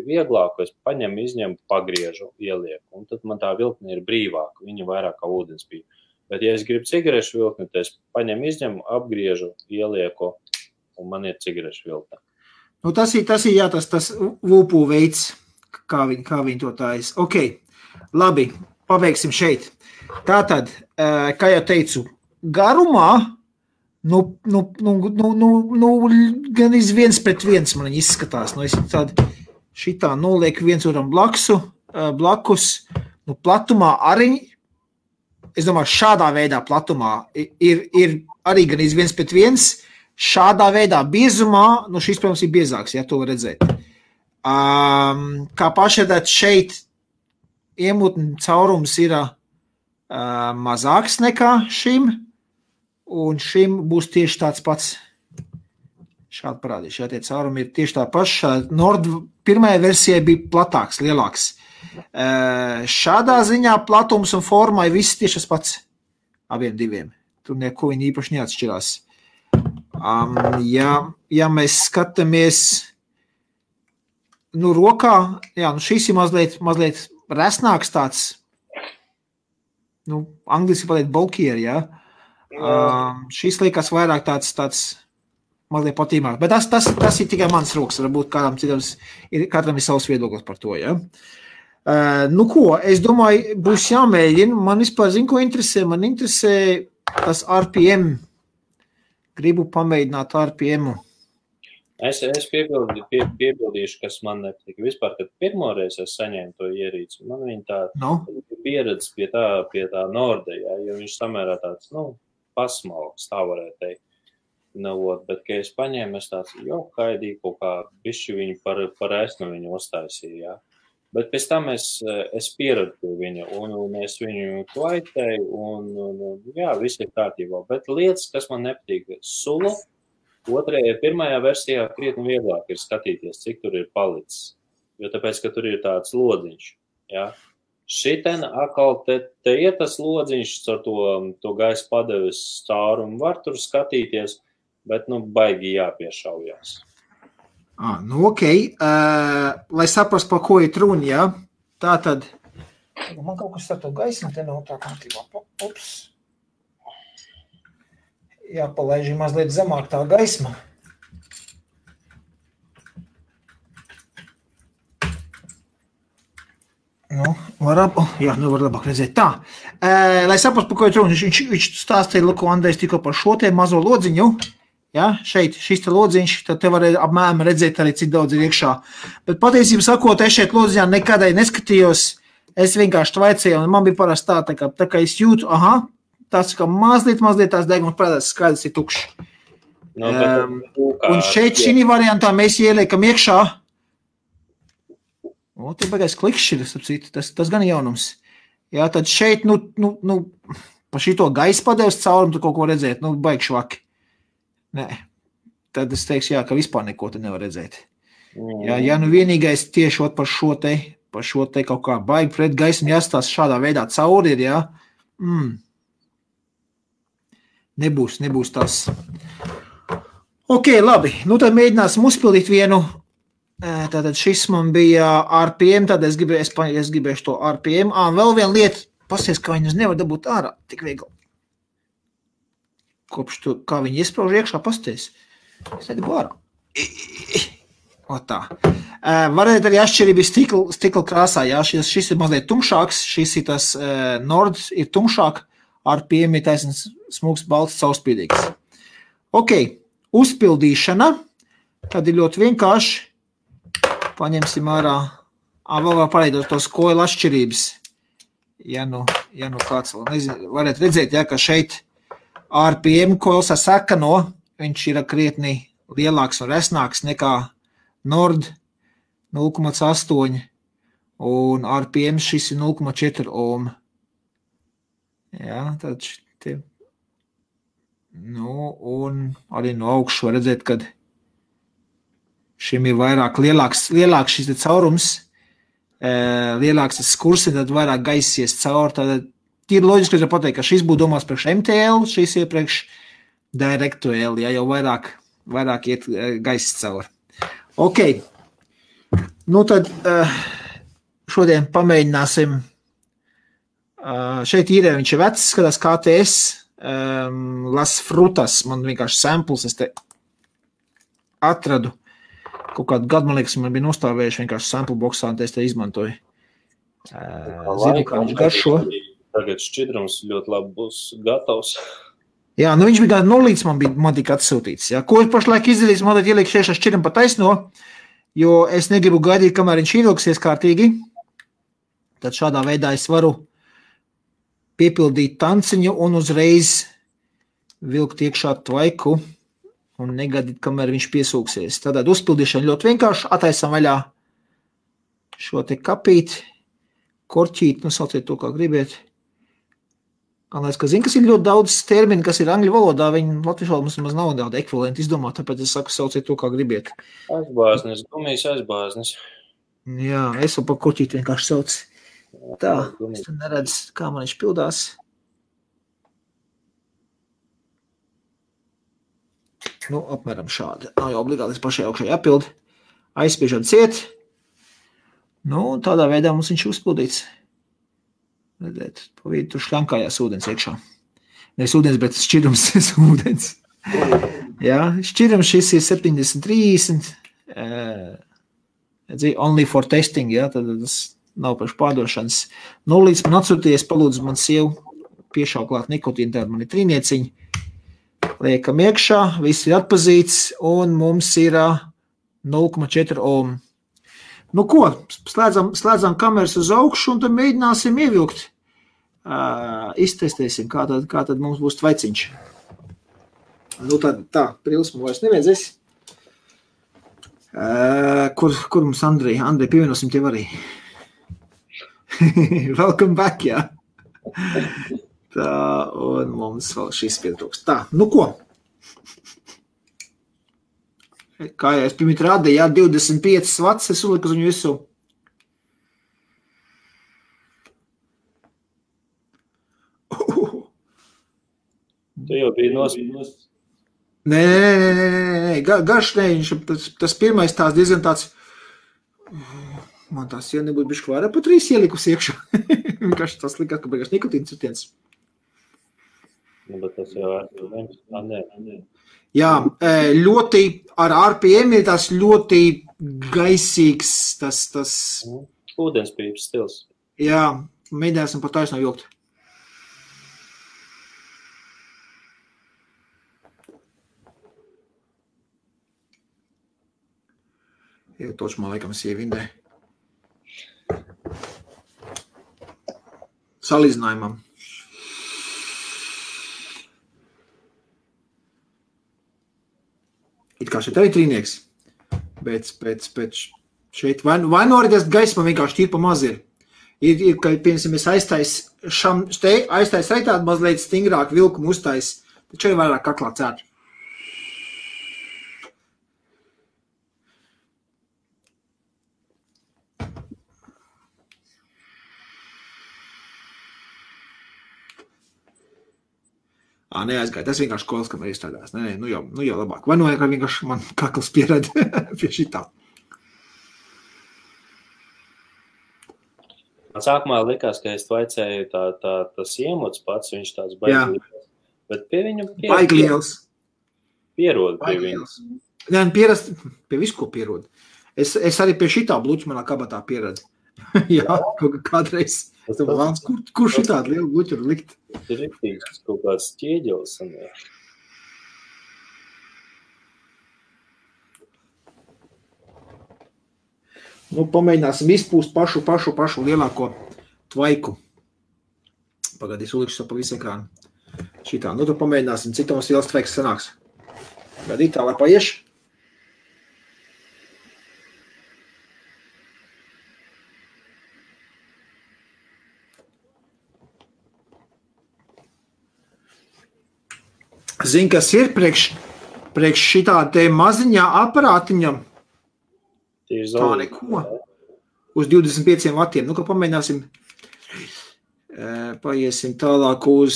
vieglāku, es paņemu, izņemu, pagriežu, ielieku. Un tad man tā viltne ir brīvāka, viņa vairāk kā ūdenspīpa. Bet, ja es gribu cigarešu viltni, tad es paņemu, izņemu, apgriežu, ielieku, un man ir cigarešu viltne. Nu, tas ir tas vulpu veids, kā viņi to tājas. Ok, labi, pabeigsim šeit. Tātad, kā jau teicu, garumā, gan iz 1:1 man viņi izskatās. Es šitā nolieku viens otram blakus, platumā arī, es domāju, šādā veidā platumā ir arī gan iz 1:1, šādā veidā biezumā, šis, protams, ir biezāks, ja to var redzēt. Kā pašredāt šeit iemutni caurums ir mazāks nekā šim, un šim būs tieši tāds pats. Šādi parādīšu, tie caurumi ir tieši tā paša. Nord pirmajā versijā bija platāks, lielāks. Šādā ziņā platums un formai viss tieši tas pats abiem diviem. Tur neko viņi īpaši neatšķirās. Ja mēs skatāmies rokā, šis ir mazliet resnāks tāds, angliski pateikt bulkier, šis liekas vairāk tāds mazliet patīmāk, bet tas ir tikai mans rokas, varbūt katram ir savs viedoklis par to, es domāju, būs jāmēģina, man vispār zinu, ko interesē, man interesē tas RPM, gribu pamēģināt RPM-u. Es piebildīšu, kas man nepatika. Vispār, kad pirmoreiz es saņēmu to ierīci, man viņa tā pieredzes pie tā Norda, jo viņš samērā tāds, pasmalks, tā varētu teikt. Bet, kad es paņēmu, es tāds, haidīju kaut kā bišķi viņu par esmu viņu uztaisīju, jā. Bet pēc tam es pieradu pie viņa, un es viņu klaitēju, un viss ir kārtībā. Bet lietas, kas man nepatīk, sula, pirmajā versijā krietni vieglāk ir skatīties, cik tur ir palicis. Jo tāpēc, ka tur ir tāds lodziņš, jā. Šiten atkal te ir tas lodziņš ar to gaisa padeves caurumu, var tur skatīties, bet, baigi jāpiešaujās. Ok. Lai saprast, par ko ir runa, jā? Tā tad. Man kaut kas ar to gaismu te nav tā kārtībā. Ups. Jāpalaiž mazliet zemāk tā gaisma. Var labāk redzēt. Tā. Lai saprast, par ko ir runa, viņš stāstīja, ko Andrejs tikko par šo te mazo lodziņu. Ja, šeit, šis te lodziņš, tad te var apmēram redzēt arī, cik daudz ir iekšā. Bet patiesībā sakot, es šeit lodziņā nekādai neskatījos, es vienkārši tvaicēju, un man bija parasti tā kā es jūtu, tās kā mazliet tās degums parādās, skaidrs ir tukšs. Un šeit šī variantā mēs ieliekam iekšā. Te bagais klikšķiris, tas gan jaunums. Jā, tad šeit, pa šito gaisa padeves caurumu tu kaut ko redzēt, baigi švaki. Nē, tad es teikšu, ka vispār neko te nevar redzēt. Ja vienīgais tieši par šo te kaut kā baigi pret gaismu jāstās šādā veidā cauri ir, jā. Nebūs tas. Ok, labi, tad mēģināsim uzpildīt vienu. Tātad šis man bija RPM, tad es gribēšu to RPM. Vēl viena lieta, pasties, kā viņus nevar dabūt ārā, tik viegli. Kopš to, kā viņi iesprauž iekšā, pasties. Es nedabu ārā. Tā. Varētu arī atšķirība stikla krāsā, jā, šis ir mazliet tumšāks, šis ir tas Nord ir tumšāk, RPM ir taisnīgs smūgs, balts, caurspīdīgs. Ok, uzpildīšana, tad ir ļoti vienkārši. Paņemsim ārā, vēl var pareidot tos koilu atšķirības. Ja kāds vēl nezinu, varētu redzēt, ka šeit RPM koils ar sakano, viņš ir krietni lielāks un resnāks nekā Nord 0,8 un RPM šis ir 0,4 ohm. Jā, tad te. Un arī no augšu var redzēt, kad šim ir vairāk lielāks šis caurums, lielāks tas skurs, tad vairāk gaisies caur. Tad ir loģiski, ka pateikt, ka šis būtu domās priekš MTL, šis ir priekš DirectL, ja jau vairāk iet gaiss caur. Ok, tad šodien pamēģināsim. Šeit īrē viņš ir vecs, skatās KTS, Las Frutas, man vienkārši samples, es te atradu. Kaut kādu gadu, man liekas, man bija nostāvējuši vienkārši sample boxā, un es te izmantoju. Zinu, kā viņš garšo. Tagad šķidrums ļoti labi būs gatavs. Jā, viņš bija gada nolīdz, man tika atsūtīts. Jā. Ko es pašlaik izdarīju, man tad ieliek šeit šķidrumu pa taisno, jo es negribu gaidīt, kamēr viņš ievilksies kārtīgi. Tad šādā veidā es varu piepildīt tanciņu un uzreiz vilkt iekšā tvaiku. Un negadīt, kamēr viņš piesūksies. Tātad uzpildīšana ļoti vienkārši. Ataisam vaļā šo te kapīt, korķīt, sauciet to, kā gribiet. Galvenais, ka zinu, kas ir ļoti daudz termini, kas ir angļu valodā, viņi latviešu valodā mums nav daudz ekvivalenti izdomāt, tāpēc es saku, sauciet to, kā gribiet. Aizbāznis, gumijas aizbāznis. Jā, es vēl pa korķīt vienkārši sauc. Tā, es te neredzu, kā man viņš pildās. Apmēram šādi. Nav jau obligāti pašai augšai jāpild. Aizspiežam ciet. Tādā veidā mums viņš uzpildīts. Redzēt, pa vidu tur šļankājās ūdens iekšā. Nevis ūdens, bet šķidrums ūdens. Jā, šķidrums šis ir 70-30. Only for testing, jā, tad tas nav priekš pārdošanas. Līdz man atsūties, palūdzu man sievu piešauklāt nikotīnu, tāda man ir trīnieciņa. Liekam iekšā, viss ir atpazīts, un mums ir 0,4 ohm. Ko? Slēdzam kameras uz augšu, un tad mēģināsim ievilkt. iztestēsim, kā tad mums būs tvaiciņš. Nu tā, prils man vairs nevajadzēs. Kur mums Andrei pievienosim tev arī? Welcome back, jā. Tā, un mums vēl šis pietrūks. Tā, nu ko? Kā jau es pirmīt rādīju, jā, 25 vats, es uliku uz viņu visu. Tu jau biji nosprīdus. Nē, garš nē, tas pirmais tās diezgan tāds, man tās jau nebūtu bišķi vairāk pa 3 ielikus iekšā. Vienkārši tas likās, ka beigās nikotīns citiens. Nu, bet tas jau nē. Jā, ļoti ar RPM ir tas ļoti gaisīgs, tas... Ūdenspīpas stils. Jā, mēģināsim par taisno vilkt. Jau toču man laikam sievindē. Salīdzinājumam. It kā šeit arī trīnieks, bet šeit vai nu arī tas gaisma vienkārši tīri pa maz ir. Ir ka, piemēram, es aiztais reitādi mazliet stingrāk vilkumu uztais, taču arī vairāk kaklā cērt. Neaizgāja. Tas vienkārši kols, kam ir izstrādās. Nē, nu jau labāk. Vai nu vienkārši man kakls pierad pie šitā. Man sākumā likās, ka es tvaicēju tas iemots pats, viņš tāds baigļiels. Bet pie viņam pierod pie viņam. Nē, pierast pie visu, ko pierod. Es arī pie šitā bluķu manā kabatā pieradu. Jā, kādreiz. Kur šitādi lielu bluķu likt? Tas ir riktīgs kaut kāds ķieģelis. Nu, pamēģināsim izpūst pašu lielāko tvaiku. Pagaidīs ulikšu pa visu ekrānu. Šitā. Nu, tad pamēģināsim, cik mums liels tvaiks sanāks. Gadīt tā, lai paieš. Zini, kas ir priekš šitā te maziņā aparātiņam? Tā neko. Uz 25 vatiem. Nu, ka pamēģināsim, paiesim tālāk uz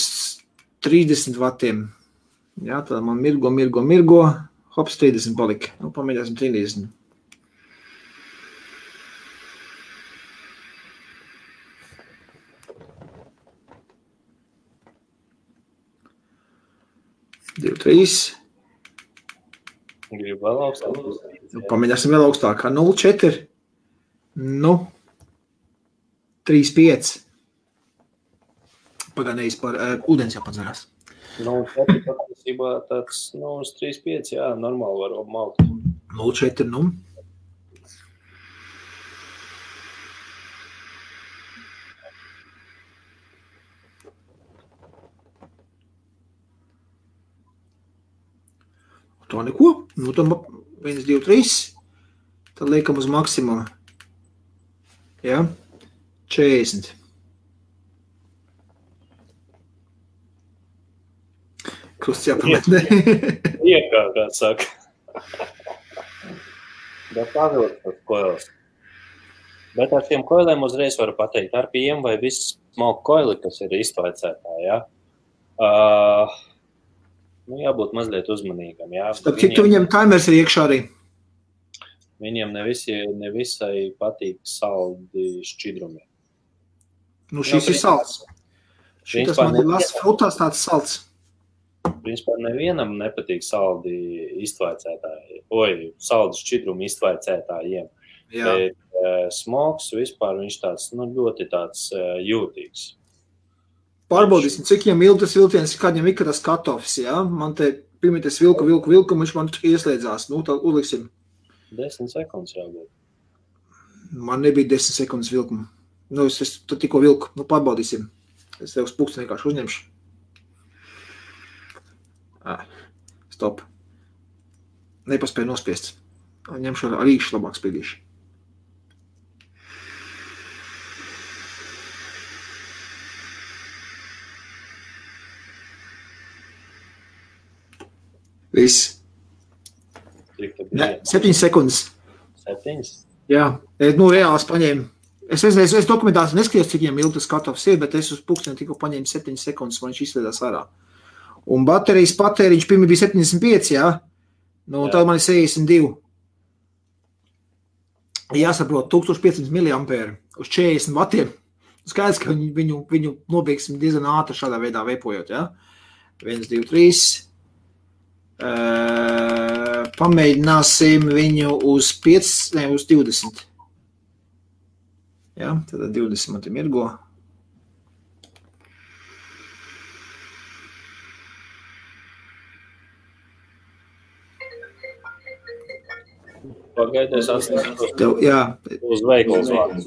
30 vatiem. Jā, tad man mirgo. Hops, 30 palika. Nu, pamēģināsim 30. Divi, 3. Gribu vēl augstāk. Pamēģināsim vēl augstāk. 0,4. Nu, 3,5. Pagaidējis par ūdens jāpadzerās. 0,4 patiesībā tāds, uz 3,5, jā, normāli var maukt. 0,4, nu. To neko. Nu, tad 1, 2, 3. Tad liekam uz maksimumu. Jā. 40. Krusts jāpamet, ne? Iekā, kā saka. Bet pavilkt tas koilis. Bet ar tiem koiliem uzreiz varu pateikt, RPM vai viss smalku koili, kas ir iztvaicētā, jā. Jābūt mazliet uzmanīgam, jā. Starp citu, viņam timers ir iekšā arī. Viņiem nevisai patīk saldi šķidrumi. Nu, šis ir salds. Šitas man ir las frutās tāds salds. Principā nevienam nepatīk saldi iztvaicētāji. Saldi šķidrumi iztvaicētājiem. Jā. Bet smogs vispār viņš tāds, ļoti tāds jūtīgs. Pārbaudīsim, cik viņam ilgi tas vilciens, kādiem ir tas cut-offs, jā? Man te pirmīties vilku, viņš man ieslēdzās. Nu, tā uzliksim. 10 sekundes jābūt. Man nebija 10 sekundes vilkuma. Nu, es tikko vilku. Nu, pārbaudīsim. Es tev uz pulksteni vienkārši uzņemšu. Stop. Nepaspēju nospiest. Ņemšu ar īkšu labāk spiedīšu. Viss. 7 sekundes. 7? Jā, reāls paņēmu. Es dokumentāciju neskatījos, cik viņam ilgi tas katofs ir, bet es uz pulksteni tikko paņēmu 7 sekundes, man viņš izslēdās ārā. Un baterijas patēriņš pirmie bija 75, jā? Nu, tad man ir 62. Jāsaprot, 1500 mAh uz 40 vatiem. Skaidrs, ka viņu nobeigsim diezgan ātri šādā veidā veipojot, jā? 1, 2, 3. Pamēģināsim viņu uz 20. Jā, tad 20 man te mirgo. Pagaidies, jā. Uz veikals vārds.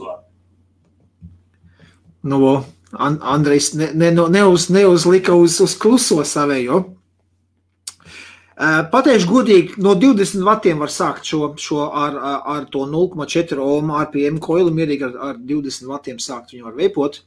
Nu, Andrejs neuzlika uz kluso savējo. Pateikšu godīgi, no 20 vatiem var sākt šo ar to 0,4 ohm RPM koilu, mierīgi ar 20 vatiem sākt viņu var veipot.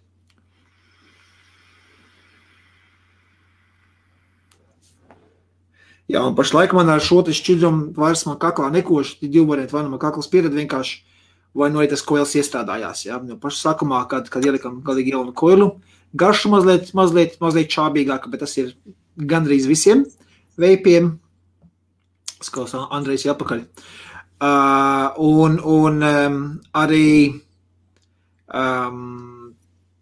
Jā, un pašlaik man ar šo te šķidrumu vairs man kaklā nekoši, divi varianti, vai nu man kakls piered vienkārši, vai nu arī tas koils iestrādājās. Jā. Pašu sākumā, kad ielikam galīgi jaunu koilu, garšu mazliet čābīgāka, bet tas ir gandrīz visiem veipiem. Skaus Andrejs jāpakaļ. Arī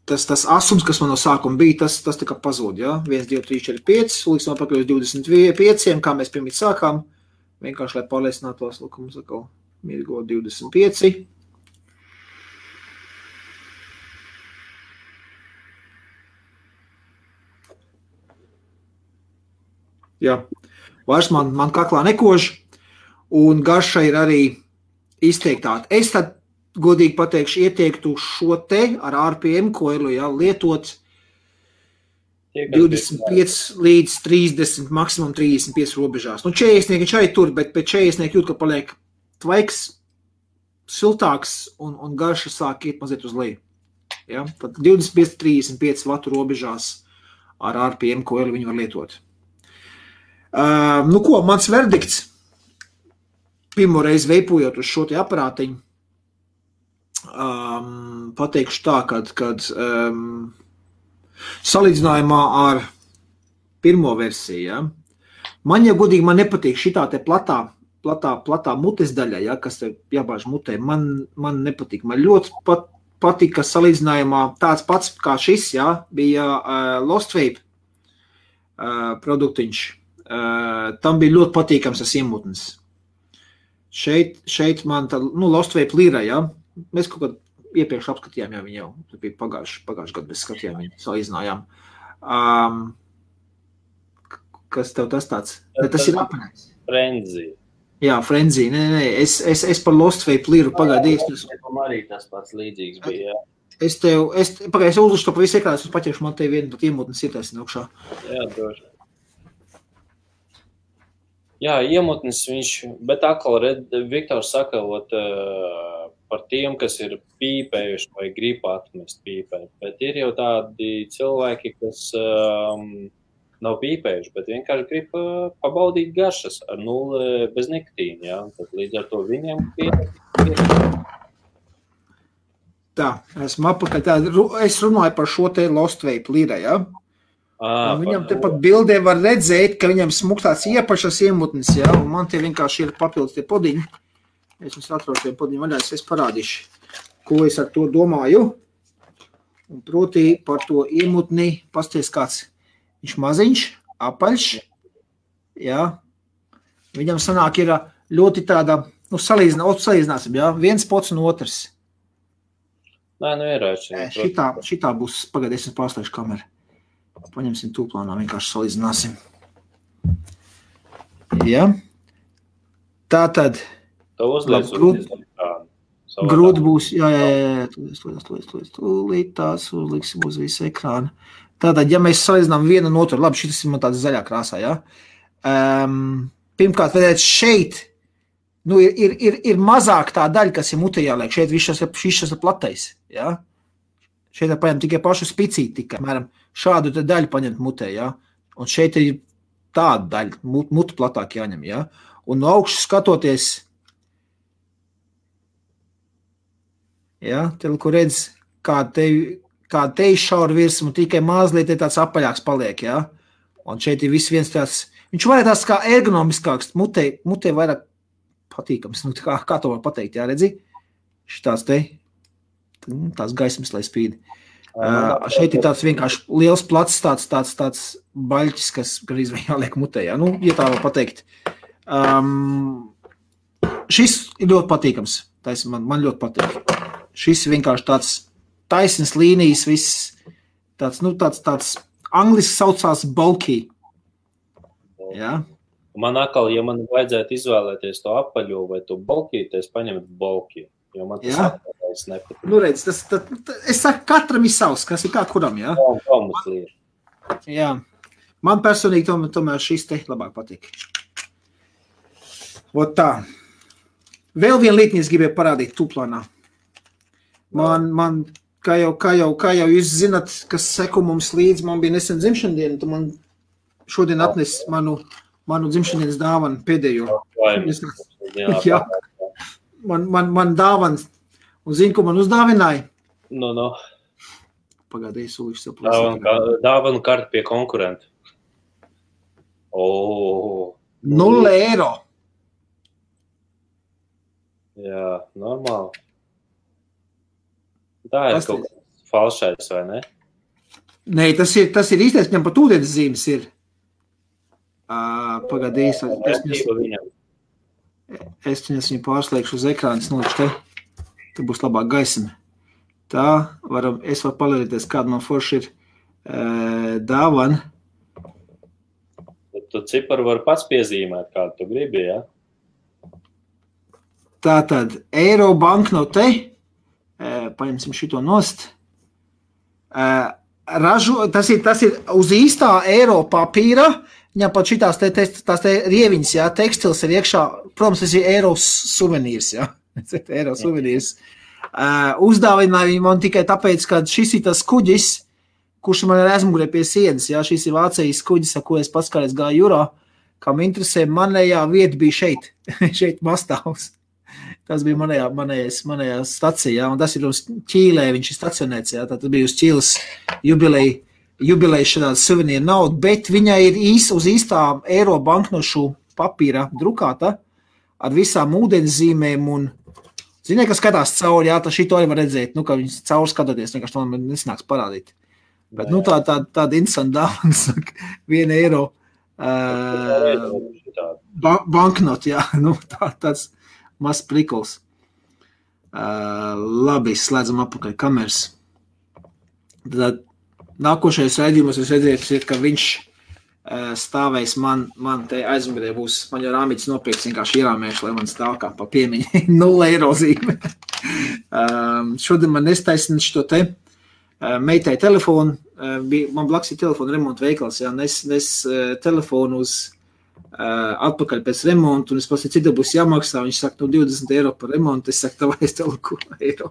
tas asums, kas man no sākuma bija, tas tā kā pazūd, jā? 1, 2, 3, 4, 5, liksim atpakaļ uz 25, kā mēs pirmīt sākām. Vienkārši, lai pārliecinātos, mums atkal mirgo 25. Jā. Vairs man kaklā nekož, un garša ir arī izteiktāta. Es tad, godīgi pateikšu, ieteiktu šo te ar RPM koilu, jā, lietot 25 līdz 30, maksimum 35 robežās. Nu, 40 viņš arī tur, bet pēc 40 jūt, ka paliek tvaiks, siltāks un garša sāk iet mazliet uz leju. Ja? Tad 25-35 vatu robežās ar RPM koilu viņu var lietot. Nu ko, mans verdikts, pirmo reizi veipojot uz šo te aparātiņu, pateikšu tā, kad salīdzinājumā ar pirmo versiju, ja, man jau godīgi man nepatīk šitā te platā mutes daļa, ja, kas te jābāž mutē, man nepatīk. Man ļoti patīk, ka salīdzinājumā tāds pats kā šis, ja, bija Lost Vape produktiņš. Tam bija ļoti patīkams tas iemutnis. Šeit man tā, Lost Vape Lira, ja, mēs kaut kad iepriekš apskatījām, ja viņi jau bija pagājuši gadu, mēs skatījām viņu, salīdzinājām. Kas tev tas tāds? Ne, tas ir apanēs. Frenzy. Jā, Frenzy. Nē. Es par Lost Vape Liru pagaidīju. Arī tas pats līdzīgs bija, jā. Es uzlušu to pa visu ekrānu, es paķeršu, man te vienu pat iemutnes ir taisni augšā. Jā, droši. Jā, iemutnes viņš, bet atkal Viktors saka, par tiem, kas ir pīpējuši vai grib atmest pīpēt, bet ir jau tādi cilvēki, kas nav pīpējuši, bet vienkārši grib pabaudīt garšas ar 0 bez nikotīna, jā, tad līdz ar to viņiem Tā, esmu apakaļ, es runāju par šo te Lost Vape Lira, jā. Viņam te pat bildē var redzēt, ka viņam smuktāts iepašas iemutnes, jā, un man tie vienkārši ir papildus tie podiņi. Es jums atrodu tie podiņi vaļā, es parādīšu, ko es ar to domāju. Un proti par to iemutni, pasties kāds, viņš maziņš, apaļš, jā. Viņam sanāk ir ļoti tāda, salīdzināsim, jā, viens pots un otrs. Nē, ierāči. Šitā būs, pagaidēsim pārslēgšu kameru. Paņemsim tūplānā, vienkārši salīdzināsim. Jā. Tātad. To uzliec uz ekrānu. Grūti būs, jā, tūlīt tās uzliksim uz visu ekrānu. Tātad, ja mēs salīdzinām vienu un otru, labi, šis ir man tāds zaļā krāsā, jā. Pirmkārt, redzēt, šeit, nu, ir mazāk tā daļa, kas ir mutē jāliek. Šeit viss šis ir platais, jā. Šeit ir paņemt tikai pašu spicīti, tikai, mēram, šādu te daļu paņemt mutē, jā. Un šeit ir tāda daļa, mutu platāk jāņem, jā. Un no augšas skatoties, jā, kur redz, kā te šaura virsmu, tikai mazliet tāds apaļāks paliek, jā. Un šeit ir viss viens tāds, viņš vairāk tāds kā ergonomiskāks, mutē vairāk patīkams, nu, kā to var pateikt, jā, redzi? Šitās te, tās gaismas, lai spīd. Šeit ir tāds vienkārši liels plats, tāds baļķis, kas garīz vēl jāliek mutē, jā, nu, ja tā var pateikt. Šis ir ļoti patīkams, man ļoti patīk. Šis vienkārši tāds taisnas līnijas, viss tāds, nu, tāds angliski saucās bulky. Jā. Man atkal, ja man vajadzētu izvēlēties to apaļo vai to bulky, tad es paņemtu bulky, jo man tas apaļais nepatīk. Nu, redz, es saku, katram ir savs, kas ir kā kuram, jā? Jā. Man personīgi tomēr šis te labāk patīk. Ot tā. Vēl viena lietni es gribēju parādīt tūplānā. Man kā jau jūs zinat, kas seko mums līdz, man bija nesen dzimšandiena, tu man šodien atnes manu dzimšandienas dāvanu pēdējo. Jā. Man dāvans, un zini, ko man uzdāvināja? No. Pagādēji, sūliši saplāsīt. Dāvanu karti pie konkurenta. 0 eiro. Jā, normāli. Tā ir kaut kas falšais, vai ne? Nē, tas ir īstais, viņam pat ūdens zīmes ir. Pagādīs. Es viņu pārslēgšu uz ekrānas nolikšu te. Te būs labāk gaisma. Tā, es varu palīdēties, kāda man forši ir dāvana. Tu ciparu var pats piezīmēt, kādu tu gribi, jā? Tātad, eiro banknote, paņemsim šito nost, tas ir uz īstā eiro papīra, viņam pat šitās te rieviņas, jā, tekstils ir iekšā, protams, tas ir eiro suvenīrs, jā, eiro suvenīrs. Uzdāvināja viņu man tikai tāpēc, ka šis ir tas kuģis, kurš man ir aizmugurē pie sienas, jā, šis ir Vācijas kuģis, ar ko es pats kādreiz gāju jūrā, kam interesē, manējā vieta bija šeit, šeit Mastāvs. Tas bija manējā stacija, jā, un tas ir uz Ķīlē, viņš ir stacionēts, jā, tad bija uz Ķīles jubilejas šādā suvenīra nauda, bet viņa ir uz īstā eiro banknošu papīra drukāta ar visām ūdenszīmēm un, ziniet, ka skatās cauri, jā, tad šito arī var redzēt, nu, ka viņas cauri skatoties, vienkārši to man nesnāks parādīt. Bet, nu, tāda interesanta dāvana, 1 eiro banknot, jā, nu, tāds maz prikls. Labi, slēdzam apakaļ kameras. Tad nākošais raidījumos es redzēju, ka viņš stāvēs man te aizmugurē būs, man jau rāmītis nopirks, vienkārši ierāmēšu, lai man stāv kā pa piemiņu 0 eiro zīme. Šodien man nestaisina šito te meitai telefonu, man blakus ir telefonu remonta veikals, jā, nes telefonu uz atpakaļ pēc remontu, un es pats, cita būs jāmaksā, viņš saka, nu 20 eiro par remontu, es saku, tavai es tev ko eiro.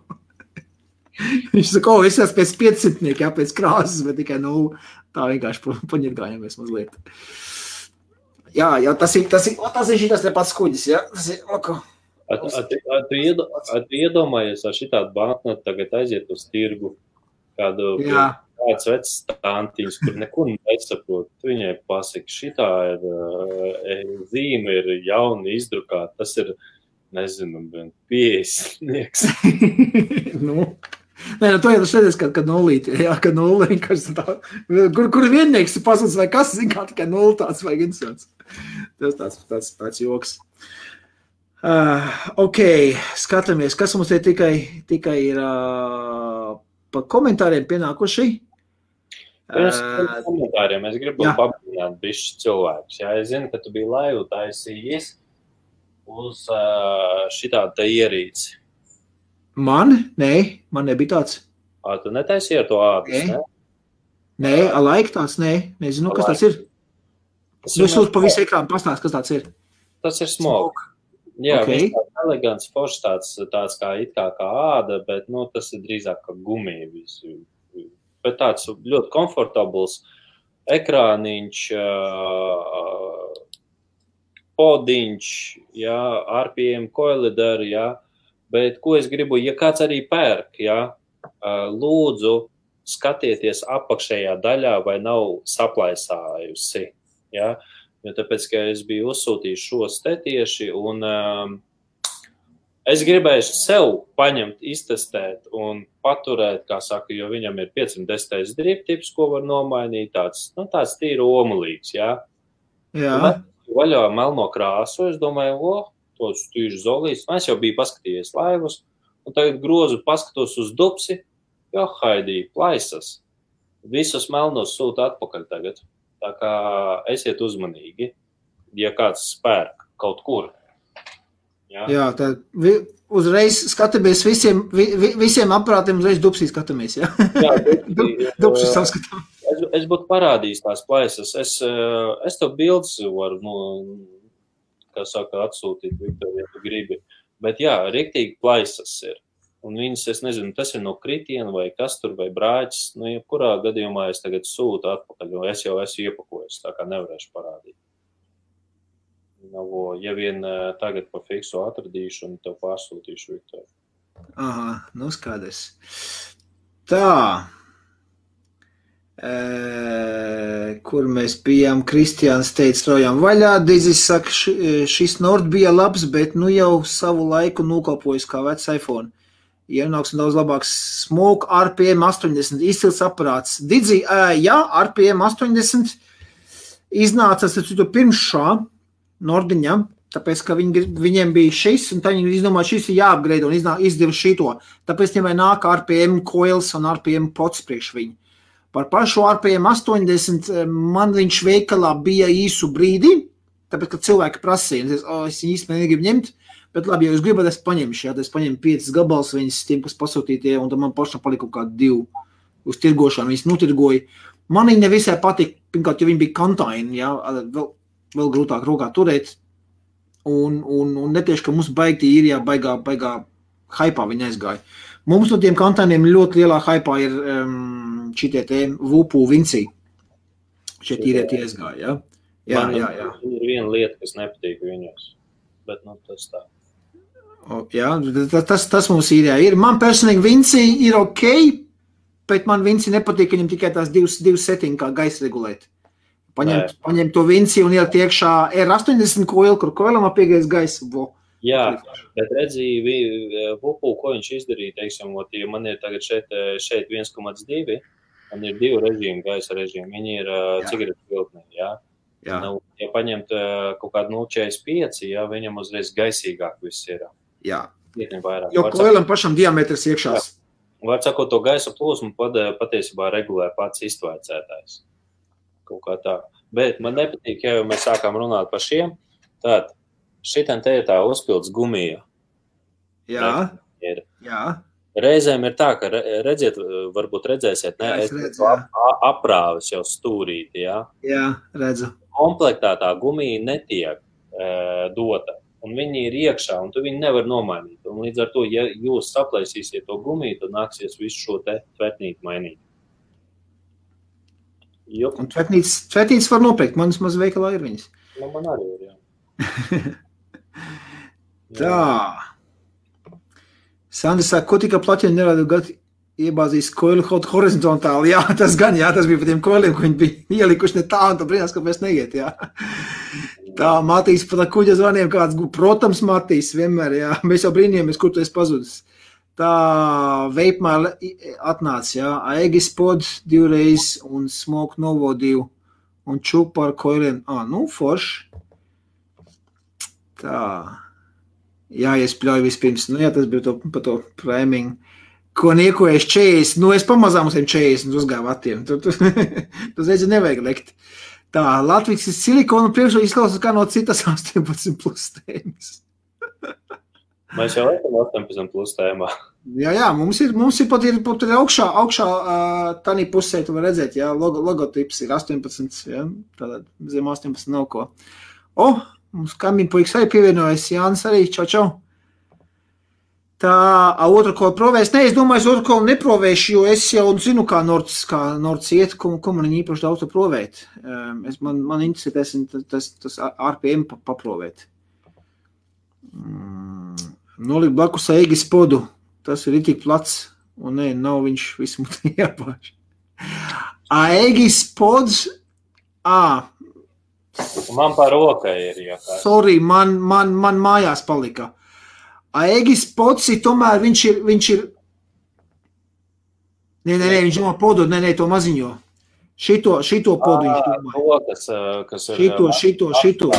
Viņš saka, es esmu pēc 500, jā, pēc krāsas, bet tikai, nu, tā vienkārši paņirgājamies mazliet. Jā, tas ir šitas te pats kuģis, jā, tas ir, lako. Tu iedomājies ar šitādu banknotu tagad aiziet uz tirgu, kādu kāds vecs stāntīns, kur neko nesaprot. Viņai pasaka, šitā ir zīme, ir jauni izdrukāta, tas ir, nezinu, 50. Nu, nē, to jau tas redzēs, ka nulīti, jā, ka nulli vienkārši tā, kur viennieks ir pasaules vai kas, zin kā tikai nulli tāds vai interesants. Tas tāds joks. Ok, skatāmies, kas mums te tikai ir pa komentāriem pienākuši. Pirms komentāriem es gribu pabrīnāt bišķi cilvēkus. Jā, es zinu, ka tu biji laivu taisījies uz šitādu te ierīci. Man nebija tāds. Tu netaisīji ar to ādus, ne? Nē, alaik tāds, nezinu, kas tāds ir. Es lūdzu pa visu ekrānu pastāst, kas tāds ir. Tas ir smoke. Jā, viņš tāds elegants, foršs, tāds kā it kā āda, bet, tas ir drīzāk kā gumija visu. Bet tāds ļoti komfortabls ekrāniņš, podiņš, jā, RPM koilidari, jā. Bet, ko es gribu, ja kāds arī pērk, jā, lūdzu, skatieties apakšējā daļā, vai nav saplaisājusi, jā. Jo tāpēc, ka es biju uzsūtījis šos te tieši, un es gribēju sev paņemt, iztestēt un paturēt, kā saka, jo viņam ir 510 driptips, ko var nomainīt, tāds tīri omulīgs, jā. Jā. Vaļā melno krāsu, es domāju, tos tīši zolīts, es jau biju paskatījies laivus, un tagad grozu paskatos uz dupsi, jo haidī, plaisas, visus melnos sūta atpakaļ tagad. Tā kā esiet uzmanīgi, ja kāds spērk kaut kur. Jā, tad uzreiz skatāmies visiem aparātiem, uzreiz dupsī skatāmies, jā? Jā, dupsī saskatām. Es būtu parādījis tās plaisas. Es tev bildes varu, kā saka, atsūtīt, Viktor, ja tu gribi. Bet jā, riktīgi plaisas ir. Un viņas, es nezinu, tas ir no kritiena vai kas tur, vai brāķis. Jebkurā gadījumā es tagad sūtu atpakaļ, jo es jau esmu iepakojis, tā kā nevarēšu parādīt. Ja vien tagad pa fiksu atradīšu un tev pārsūtīšu, Viktor. Aha, skaidrs. Tā. Kur mēs bijām, Kristiāns teica, straujām vaļā. Dizis saka, šis Nord bija labs, bet jau savu laiku nokalpojas kā vecs iPhone. Ienāks un daudz labāks smoke, RPM 80, izcils aparāts. Didzi, jā, RPM 80 iznāca pirms šā Nordiņa, tāpēc, ka viņiem bija šis, un tā viņi izdomāja, šis ir jāapgrade un izdeva šito. Tāpēc viņam nāk RPM coils un RPM pots priekš viņu. Par pašu RPM 80 man viņš veikalā bija īsu brīdi, tāpēc, ka cilvēki prasīja, es viņu īstenībā negribu ņemt, bet labi, ja jūs gribat, es paņemšu, es paņemu 5 gabals viņas tiem, kas pasūtītie, un tad man pašam palika kaut kādi 2 uz tirgošanu, viņas notirgoja. Man viņa nevisai patika, pirmkārt, jo viņa bija kantaini, jā, vēl grūtāk rokā turēt, un netieši, ka mums baigtī ir, jā, baigā haipā viņa aizgāja. Mums no tiem kantainiem ļoti lielā haipā ir šitie te Vupu Vinci. Šie tīrie tie aizgāja, jā. Jā. Ir viena lieta, kas nepatīk viņos, bet tas tā. Jā, tas mums ir, jā. Man personīgi Vinci ir ok, bet man Vinci nepatīk, viņam tikai tās 2 settiņi kā gaisa regulēt. Paņemt to Vinci un ielikt iekšā R80 koilu, kur koilam apiegaisa gaisa. Jā, bet redzīja Vupu, ko viņš izdarīja, teiksim, ja man ir tagad šeit 1,2, man ir 2 režīmi, gaisa režīmi, viņi ir cigaretu filtnē, jā. Ja paņemt kaut kādu 0,45, jā, viņam uzreiz gaisīgāk viss ir. Jā, jo koilam pašam diametrs iekšās. Var sakot, to gaisa plūsmu patiesībā regulē pats iztvaicētājs. Kaut kā tā. Bet man nepatīk, ja jau mēs sākām runāt par šiem, tad šitam te ir tā uzpilds gumija. Jā. Reizēm ir tā, ka redziet, varbūt redzēsiet, aprāvis jau stūrīti, jā? Jā, redzu. Komplektā tā gumija netiek dota, un viņi ir iekšā, un tu viņi nevar nomainīt. Un līdz ar to, ja jūs saplaisīsiet to gumiju, tad nāksies visu šo te tvetnīti mainīt. Un tvetnītes var nopirkt, manas maz veikalā ir viņas. Man arī ir, jā. Tā. Sandra saka, ko tika plaķiņi nerādu gadu iebāzīs koilu horizontāli. Jā, tas gan, jā, tas bija par tiem koiliem, ko viņi bija ielikuši ne tā, un tā brīnās, kāpēc neiet, jā. Tā, Matīs par tā kuģa zvaniem kāds, protams, Matīs, vienmēr, jā. Mēs jau brīnījāmies, kur tu esi pazudis. Tā veipmēl atnāca, jā. Aegis pod 2 reiz un Smoke Novo 2 un čuk par koiliem. Forši. Tā. Jā, es pļauju vispirms. Jā, tas bija par to priming. Ko niekojies 40. Es pamazām uz 40 uzgāju vatiem. Tu redzi, nevajag lekt. Tā, Latvijas silikonu priekšā izklausās kā no citas 18 plus tēmas. Mēs jau esam 18 plus tēmā. Jā, mums ir pat augšā tādā pusē, tu var redzēt, jā, logotips ir 18, jā, tātad zem 18 nav ko. Mums kaimiņu puikas arī pievienojas, Jānis arī, čau. Tā, otru kolu provēs, es domāju, es otru kolu neprovēšu, jo es jau zinu, kā Nords iet, ko man īpaši daudz to provēt. Man interesē tas RPM paprovēt. Nolikt blakus Eigis podu. Tas ir tik plats, un nav viņš visu mutē jāpāž. Eigis pods, Man par rokai ir jāpāž. Sorry, man mājās palika. Eigis pods ir tomēr, viņš ir... Nē, viņš domā podu, to maziņo. Šito podu viņš domā. Kas ir... Šito.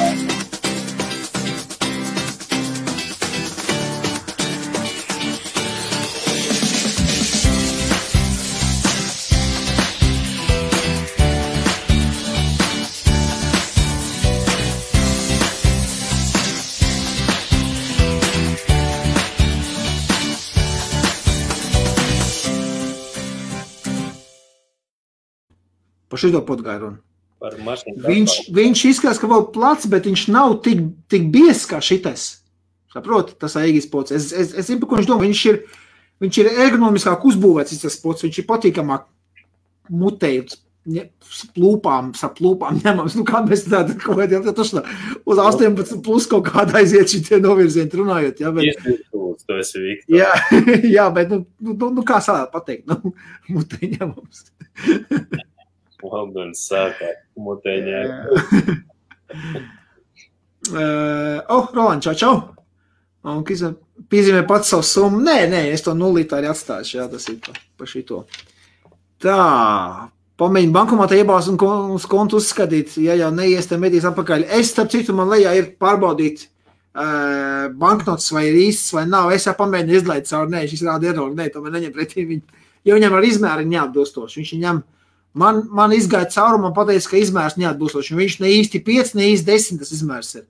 Par šito podgāju runu. Viņš izskatās, ka vēl plats, bet viņš nav tik biezs kā šitais. Saproti, tas Eigis pods. Es zinu, par ko viņš domā. Viņš ir ergonomiskāk uzbūvēts, tas pods. Viņš ir patīkamāk mutējot sa plūpām ņemams. Kā mēs tādu kaut kādā uz 18 plus kaut kādā aiziet šitie novirzieni runājot. Jā, bet, tu esi Viktor. Jā, bet kā sādā pateikt? Mutē ņemams. Londons sākā mutēņā. Roland, čau. Un piezīmē pats savu summu. Nē, es to nulītā arī atstāšu. Jā, tas ir pa šito. Tā, pamēģinu bankomātā iebāzt un uz kontu uzskatīt. Ja jau neies, tad medīs atpakaļ. Es, starp citu, man lejā ir pārbaudīt banknotes vai ir īsts vai nav. Es jau pamēģinu izlaid caur. Nē, šis rāda errori. Nē, tomēr neņem pretī viņu. Ja viņam ar izmēri neatbilstoši. Viņš viņam Man izgāja cauri, man pateica, ka izmērs neatbilstoši. Viņš ne īsti 5, ne īsti 10 tas izmērs ir.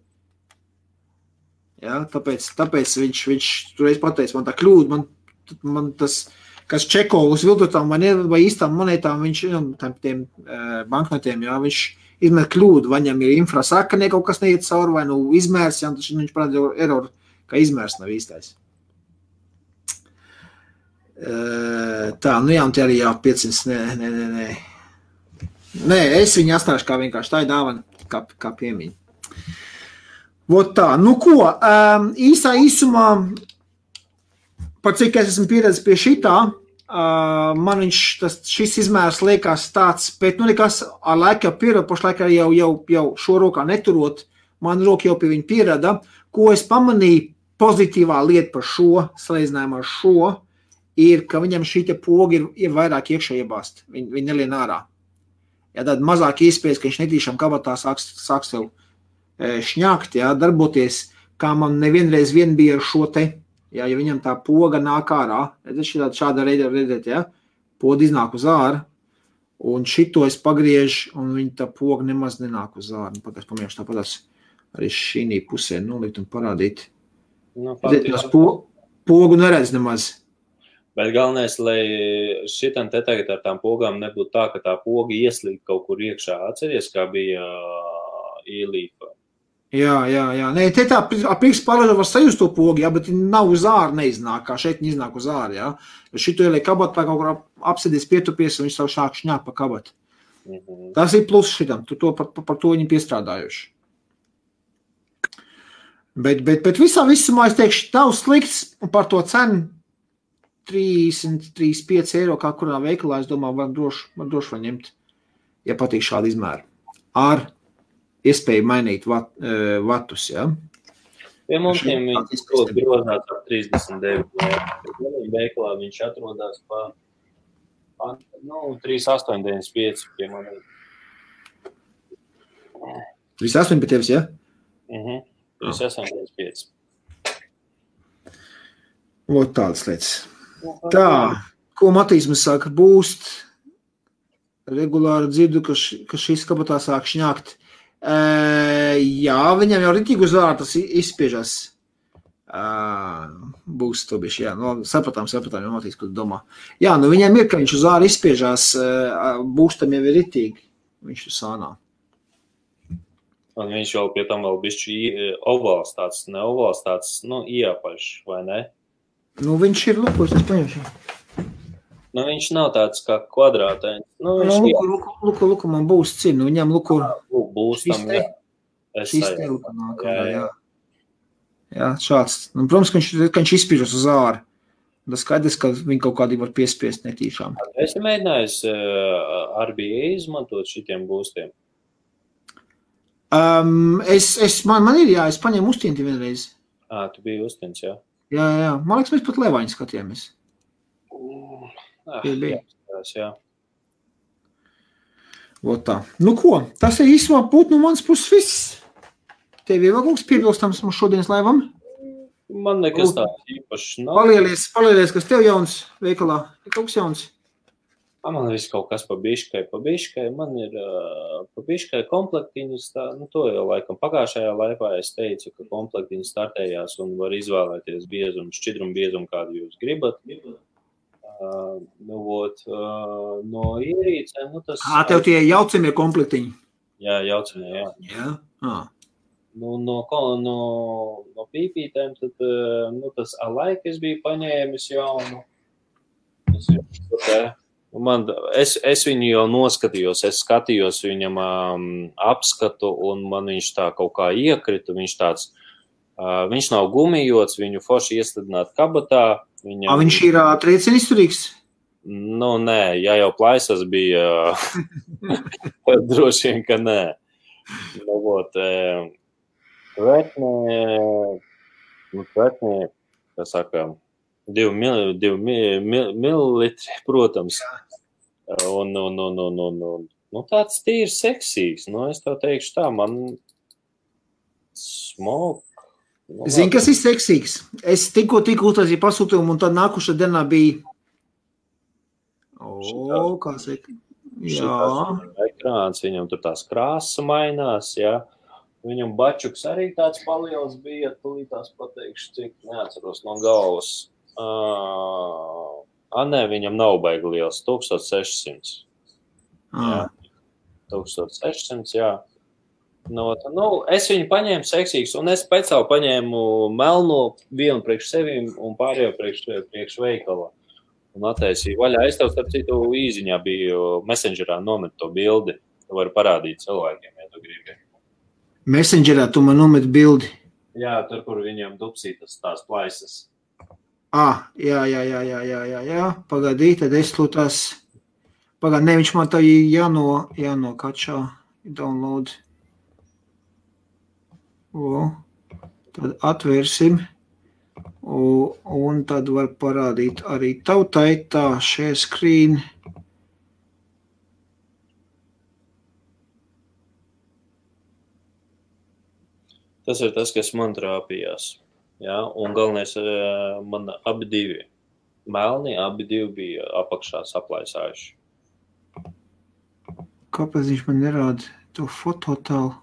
Jā, tāpēc viņš toreiz pateica, man tā kļūda, man tas, kas čeko uz viltotām vai īstām monētām, viņš, tiem banknotiem, jā, viņš izmēr kļūdu, vai viņam ir infrasaka, ne kaut kas neiet cauri, vai izmērs, jā, tas viņš parāda error, ka izmērs nav īstais. Tā, jā, un te arī jā, 500, nē. Nē, es viņu atstāšu kā vienkārši tā ir dāvana, kā piemiņa. Vot tā, ko, īsumā, par cik es esmu pieredzis pie šitā, man šis izmērs liekas tāds, bet nekas ar laiku jau pierada, pašlaik jau šo rokā neturot, man roka jau pie viņa pierada, ko es pamanīju pozitīvā lieta par šo, salīdzinājumā ar šo, ir, ka viņam šī poga ir vairāk iekšā iebāzt, viņi nelien ārā. Ja tāda mazāk iespējas, ka viņš netīšām kabatā sāks sev šņākt, jā, darboties, kā man nevienreiz bija ar šo te, jā, ja viņam tā poga nāk ārā, šāda reida redzēt, jā, poda iznāk uz āru, un šito es pagriežu, un viņa tā poga nemaz nenāk uz āru. Pamiešu tāpatās arī šī pusē nolikt un parādīt. Pogu neredz nemaz. Bet galvenais, lai šitam te tagad ar tām pogām nebūtu tā, ka tā poga ieslīd kaut kur iekšā. Atceries, kā bija ielīpa? Jā. Nē, te tā priekš pārēdā var sajust to pogu, jā, bet nav uz āru neiznāk, kā šeit iznāk uz āru, jā. Šito ieliek kabatā kaut kur apsēdies pietupies, un viņš savu šāk šņāk pa kabatu. Tas ir plus šitam, par to viņi piestrādājuši. Bet visumā es teikšu, nav slikts, un par to cenu 35 eiro, kā kurā veikalā, es domāju, var droši var ņemt, ja patīk šādi izmēri. Ar iespēju mainīt vatus, jā. Pie mums viņš grozās ar 39 eiro. Veikalā viņš atrodās pa 3,895 pie manī. 3,8 pie tevis, jā? 3,895. Lūk, tādas lietas. Tā, ko Matīs mums saka, būst, regulāri dzirdu, ka šis kabatā sāk šņākt. Jā, viņam jau ritīgi uz ārā tas izspiežas. Būs to bišķi, jā. No, sapratām, jau notiks, ko tu domā. Jā, nu viņiem ir, ka viņš uz āru izspiežās, būstam jau ir ritīgi. Viņš tur sānā. Un viņš jau pie tam vēl bišķi ovāls tāds, ne ovāls tāds, nu, iepaļš, vai ne? Nu, viņš ir lukos, es paņemšu. Nu, viņš nav tāds kā kvadrātēns. Nu, viņš luku, man būs cīn, nu, viņam luku. Būs tam, jā. Šis te luku nāk, jā. Jā, šāds. Nu, protams, ka viņš izspiežas uz āru. Tas skaidrs, ka viņi kaut kādī var piespiest netīšām. Esi mēģinājis RBA izmantot šitiem būstiem? Man ir, jā, es paņēmu uztienti vienreiz. Tu biji uztiens, jā? Jā. Man liekas, mēs pat Levaņu skatījāmies. Jā. Tā. Nu ko, tas ir īsumā būt no manas puses viss. Tev ir vēl kaut kas piebilstams mums šodienas laivam? Man nekas tāds īpaši nav. Palielies, kas tev jauns veikalā? Ir kaut kas jauns? Man viss kaut kas pa biškai. Man ir pa biškai komplektiņas, nu to jau laikam pagājušajā laivā es teicu, ka komplektiņas startējās un var izvēlēties biezumu, šķidrumu biezumu, kādu jūs gribat. No ierīcēm, nu tas... Tev tie jaucamie komplektiņi? Jā, jaucamie, jā. Jā? No pīpītēm, tad, nu, tas alaik es biju paņēmis jaunu. Tas ir tā. Es viņu jau noskatījos, es skatījos viņam apskatu, un man viņš tā kaut kā iekrita. Viņš nav gumijots, viņu forši iestādināt kabatā. Viņš ir triecieni izturīgs? Nu, nē, ja jau plaisas bija, droši vien, ka nē. Nu, Tvetnē, kā saka, 2 mililitri, protams. Un tāds tīrs seksīgs. Nu, es tev teikšu tā, man smok. Zini, kas ir seksīgs? Es tikko uztaisīju pasūtījumu, un tad nākušā dienā bija... kā saka? Jā. Ekrāns, viņam tur tās krāsa mainās, jā. Viņam bačuks arī tāds paliels bija, tūlītās pateikšu, cik neatceros no galvas. Nē, viņam nav baigi liels, 1600. Jā, 1600, jā. Es viņu paņēmu seksīgs, un es pēc savu paņēmu melno vienu priekš sevim un pārējo priekš veikala. Un attaisīju vaļā. Es tev, starp citu, īziņā biju Messengerā nomet to bildi. Tu vari parādīt cilvēkiem, ja tu gribi. Messengerā tu man nomet bildi? Jā, tur, kur viņam dupsītas tās plaisas. Jā. Pagaidī, tad es lūtās. Ne, viņš man tā jānokačā, download. Tad atvērsim. Un tad var parādīt arī tautai tā share screen. Tas ir tas, kas man trāpījās. Jā, un galvenais, man abi divi. Melni, abi divi bija apakšā saplaisājuši. Kāpēc viņš man nerāda to fototālu?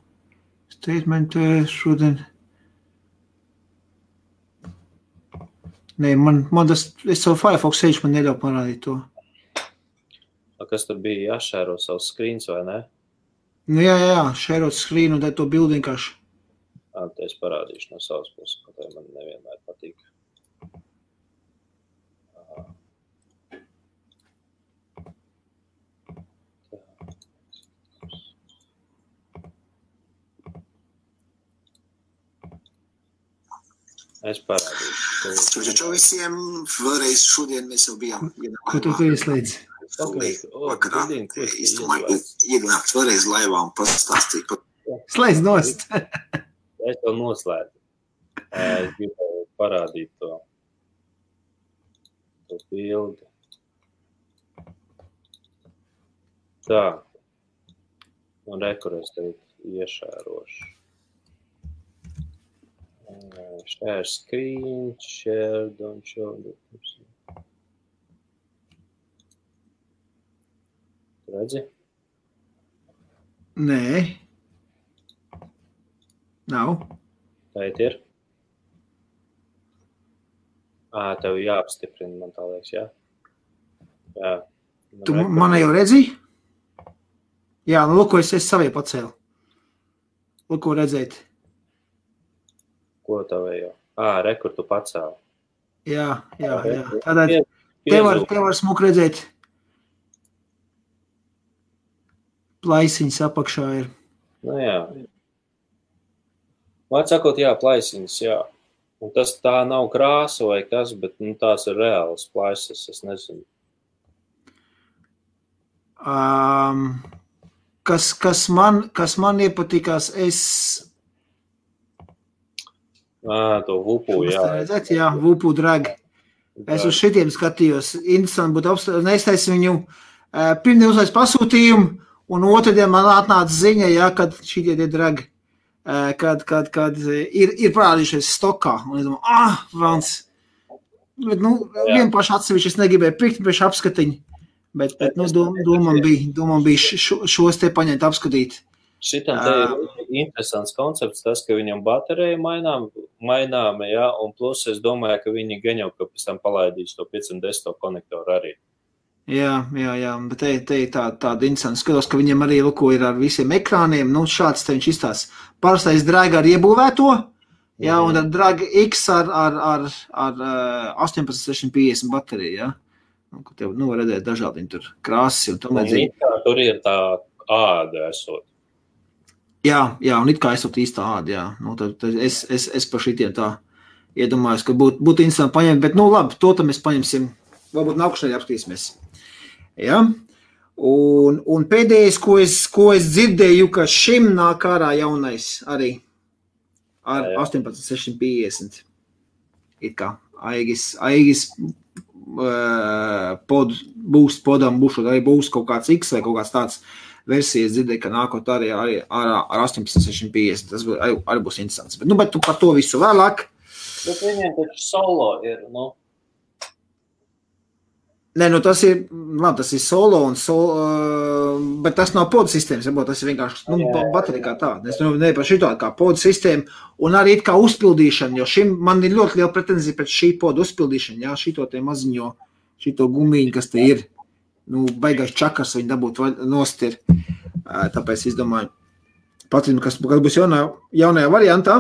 Statementu šodien. Nē, man tas, es savu Firefox sēžu, man neļauj parādīt to. Kas tur bija jāšēro savus screens, vai ne? Nu jā, šērot screen un tad to bildi vienkārši. Te es parādīšu no savas puses, ka tai man nevienmēr patīk. Es parādīšu. Čau visiem, vēlreiz šodien mēs jau bijām. Ko tu ieslēdzi? Vakarā. Es domāju, ienākt vēlreiz laivā un pastāstīt. Slēdz nost! Es to noslēdzu. Es gribēju parādīt to bildi. Tā. Un rekur es tev iešērošu. Share screen, share, don't show. Redzi? Nē. Nav. Tā ir. Tev jāapstiprina, man tā liekas, jā? Jā. Tu mani jau redzi? Jā, nu, lūk, es savie pacēlu. Lūk, ko redzēt. Ko tev jau? Rekur tu pacēli. Jā. Tādēļ te var smuk redzēt. Plaisiņas apakšā ir. Nu jā. Vārds sakot, jā, plaisiņas, jā. Un tas tā nav krāsa vai kas, bet tās ir reālas plaisas, es nezinu. Kas man iepatikās, To vupu, jā. Redzēt, jā, vupu dragi. Es uz šitiem skatījos. Interesanti būtu apstāties. Es teicu viņu, pirmdien uzlaiz pasūtījumu, un otrdien man atnāca ziņa, jā, kad šitie tie dragi, kad ir parādījušies stokā. Un es domāju, velns. Bet, vienpaši atsevišķi es negribēju pirkt, pēc apskatiņu. Bet domam bija šos te paņemt apskatīt. Šitam te ir interesants koncepts, tas, ka viņam baterija mainām, jā, un plus es domāju, ka viņi gan jau pēc tam palaidīs to 510 konektoru arī. Jā, bet te ir tāda interesanta. Skatos, ka viņam arī ir ar visiem ekrāniem, šāds te viņš izstās. Parastais Drag ar iebūvēto, jā, un ar Drag X ar 18650 bateriju, jā. Ko tev, var redzēt dažādi tur krāsas un tam līdzīgi. Tur ir tā āda esot. Jā, un it kā esot īstā āda, jā. Tad es par šitiem tā iedomājos, ka būtu interesanti paņemt, bet labi, to tam mēs paņemsim, varbūt nākušajā apskatīsimies. Jā, un pēdējais, ko es dzirdēju, ka šim nāk ārā jaunais arī ar 18650. It kā Aigis podam būšot, arī būs kaut kāds X vai kaut kāds tāds versijas dzirdēju, ka nākot arī ar 18650. Tas arī būs interesants. Bet tu par to visu vēlāk. Bet viņiem taču solo ir, Nē, tas ir solo bet tas nav podu sistēmas, tas ir vienkārši baterija kā tāda. Es ne par šito kā podu sistēmu un arī kā uzpildīšana, jo šim man ir ļoti liela pretenzija pēc šī podu uzpildīšana, jā, šito te maziņo, šito gumiņu, kas te ir, baigais čakars viņi dabūt nost ir, tāpēc es domāju, patrinu, kas būs jaunajā variantā.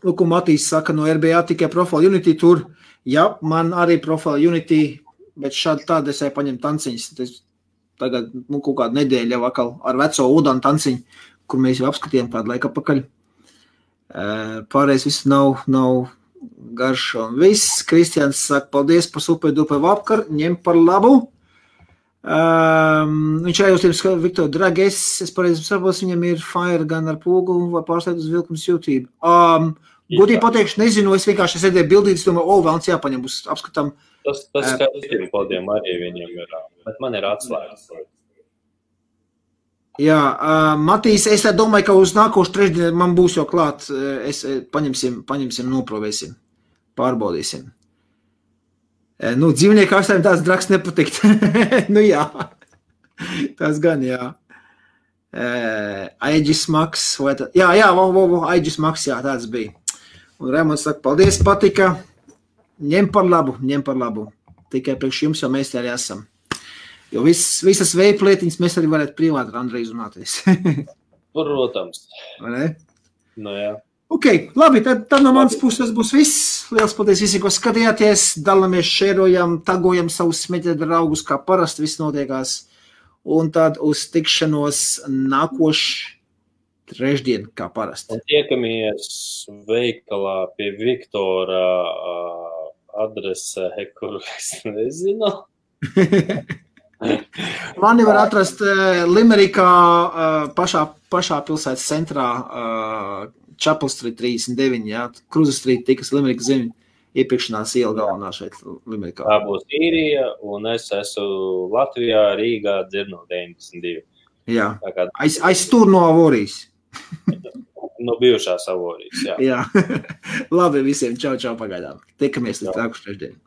Lūk, Matīs saka, no RBA tikai Profile Unity tur, jā, man arī Profile Unity, bet šādi tādi es paņemu tanciņas. Tagad kaut kādu nedēļu jau atkal ar veco Udanu tanciņu, kur mēs jau apskatījām kādu laiku apakaļ. Pārējais viss nav garšo. Viss, Kristians saka, paldies par super-duper vakar, ņem par labu. Viņš arī uz tiem Viktor Dragis, es pareizi saprotu, viņam ir Fire gan ar pūgu vai pārslēgt uz vilkums jūtību. Godīgi pateikšu, nezinu, es vienkārši sēdēju bildītas, domāju, vēlns jāpaņem, būs apskatām. Tas skatījumi podiem arī viņam ir, bet man ir atslēgas. Jā, Matīs, es domāju, ka uz nākošu trešdienu man būs jau klāt, paņemsim, noprovēsim, pārbaudīsim. Dzīvnieku ārstājiem tāds drags nepatikt. Jā, tas gan, jā. Aegis Max, vai tā? Jā, Aegis Max, jā, tāds bija. Un Raimonds saka, paldies, patika. Ņem par labu. Tikai priekš jums jau mēs arī esam. Jo visas veipa lietiņas mēs arī varētu privāti ar Andreju runāties. Protams. Vai ne? Jā. Ok, labi, tad no manas puses būs viss. Liels paldies visiem, ko skatījāties. Dalamies, šērojam, tagojam savus smēķēt draugus, kā parasti viss notiekās. Un tad uz tikšanos nākošu trešdien, kā parasti. Un tiekamies veikalā pie Viktora adrese, kuru es nezinu. Mani var atrast Limerikā pašā pilsētas centrā Chapel Street 39, jā, Cruza Street, tikas Limerikas zemi, iepirkšanās iela galvenā šeit Limerikā. Tā būs Īrija, un es esmu Latvijā, Rīgā, Dzirno 92. Jā, aiz tur no Avorijas. No bijušās Avorijas, jā. Jā, labi visiem, čau, pagaidām. Tikamies līdz nākošu trešdienu.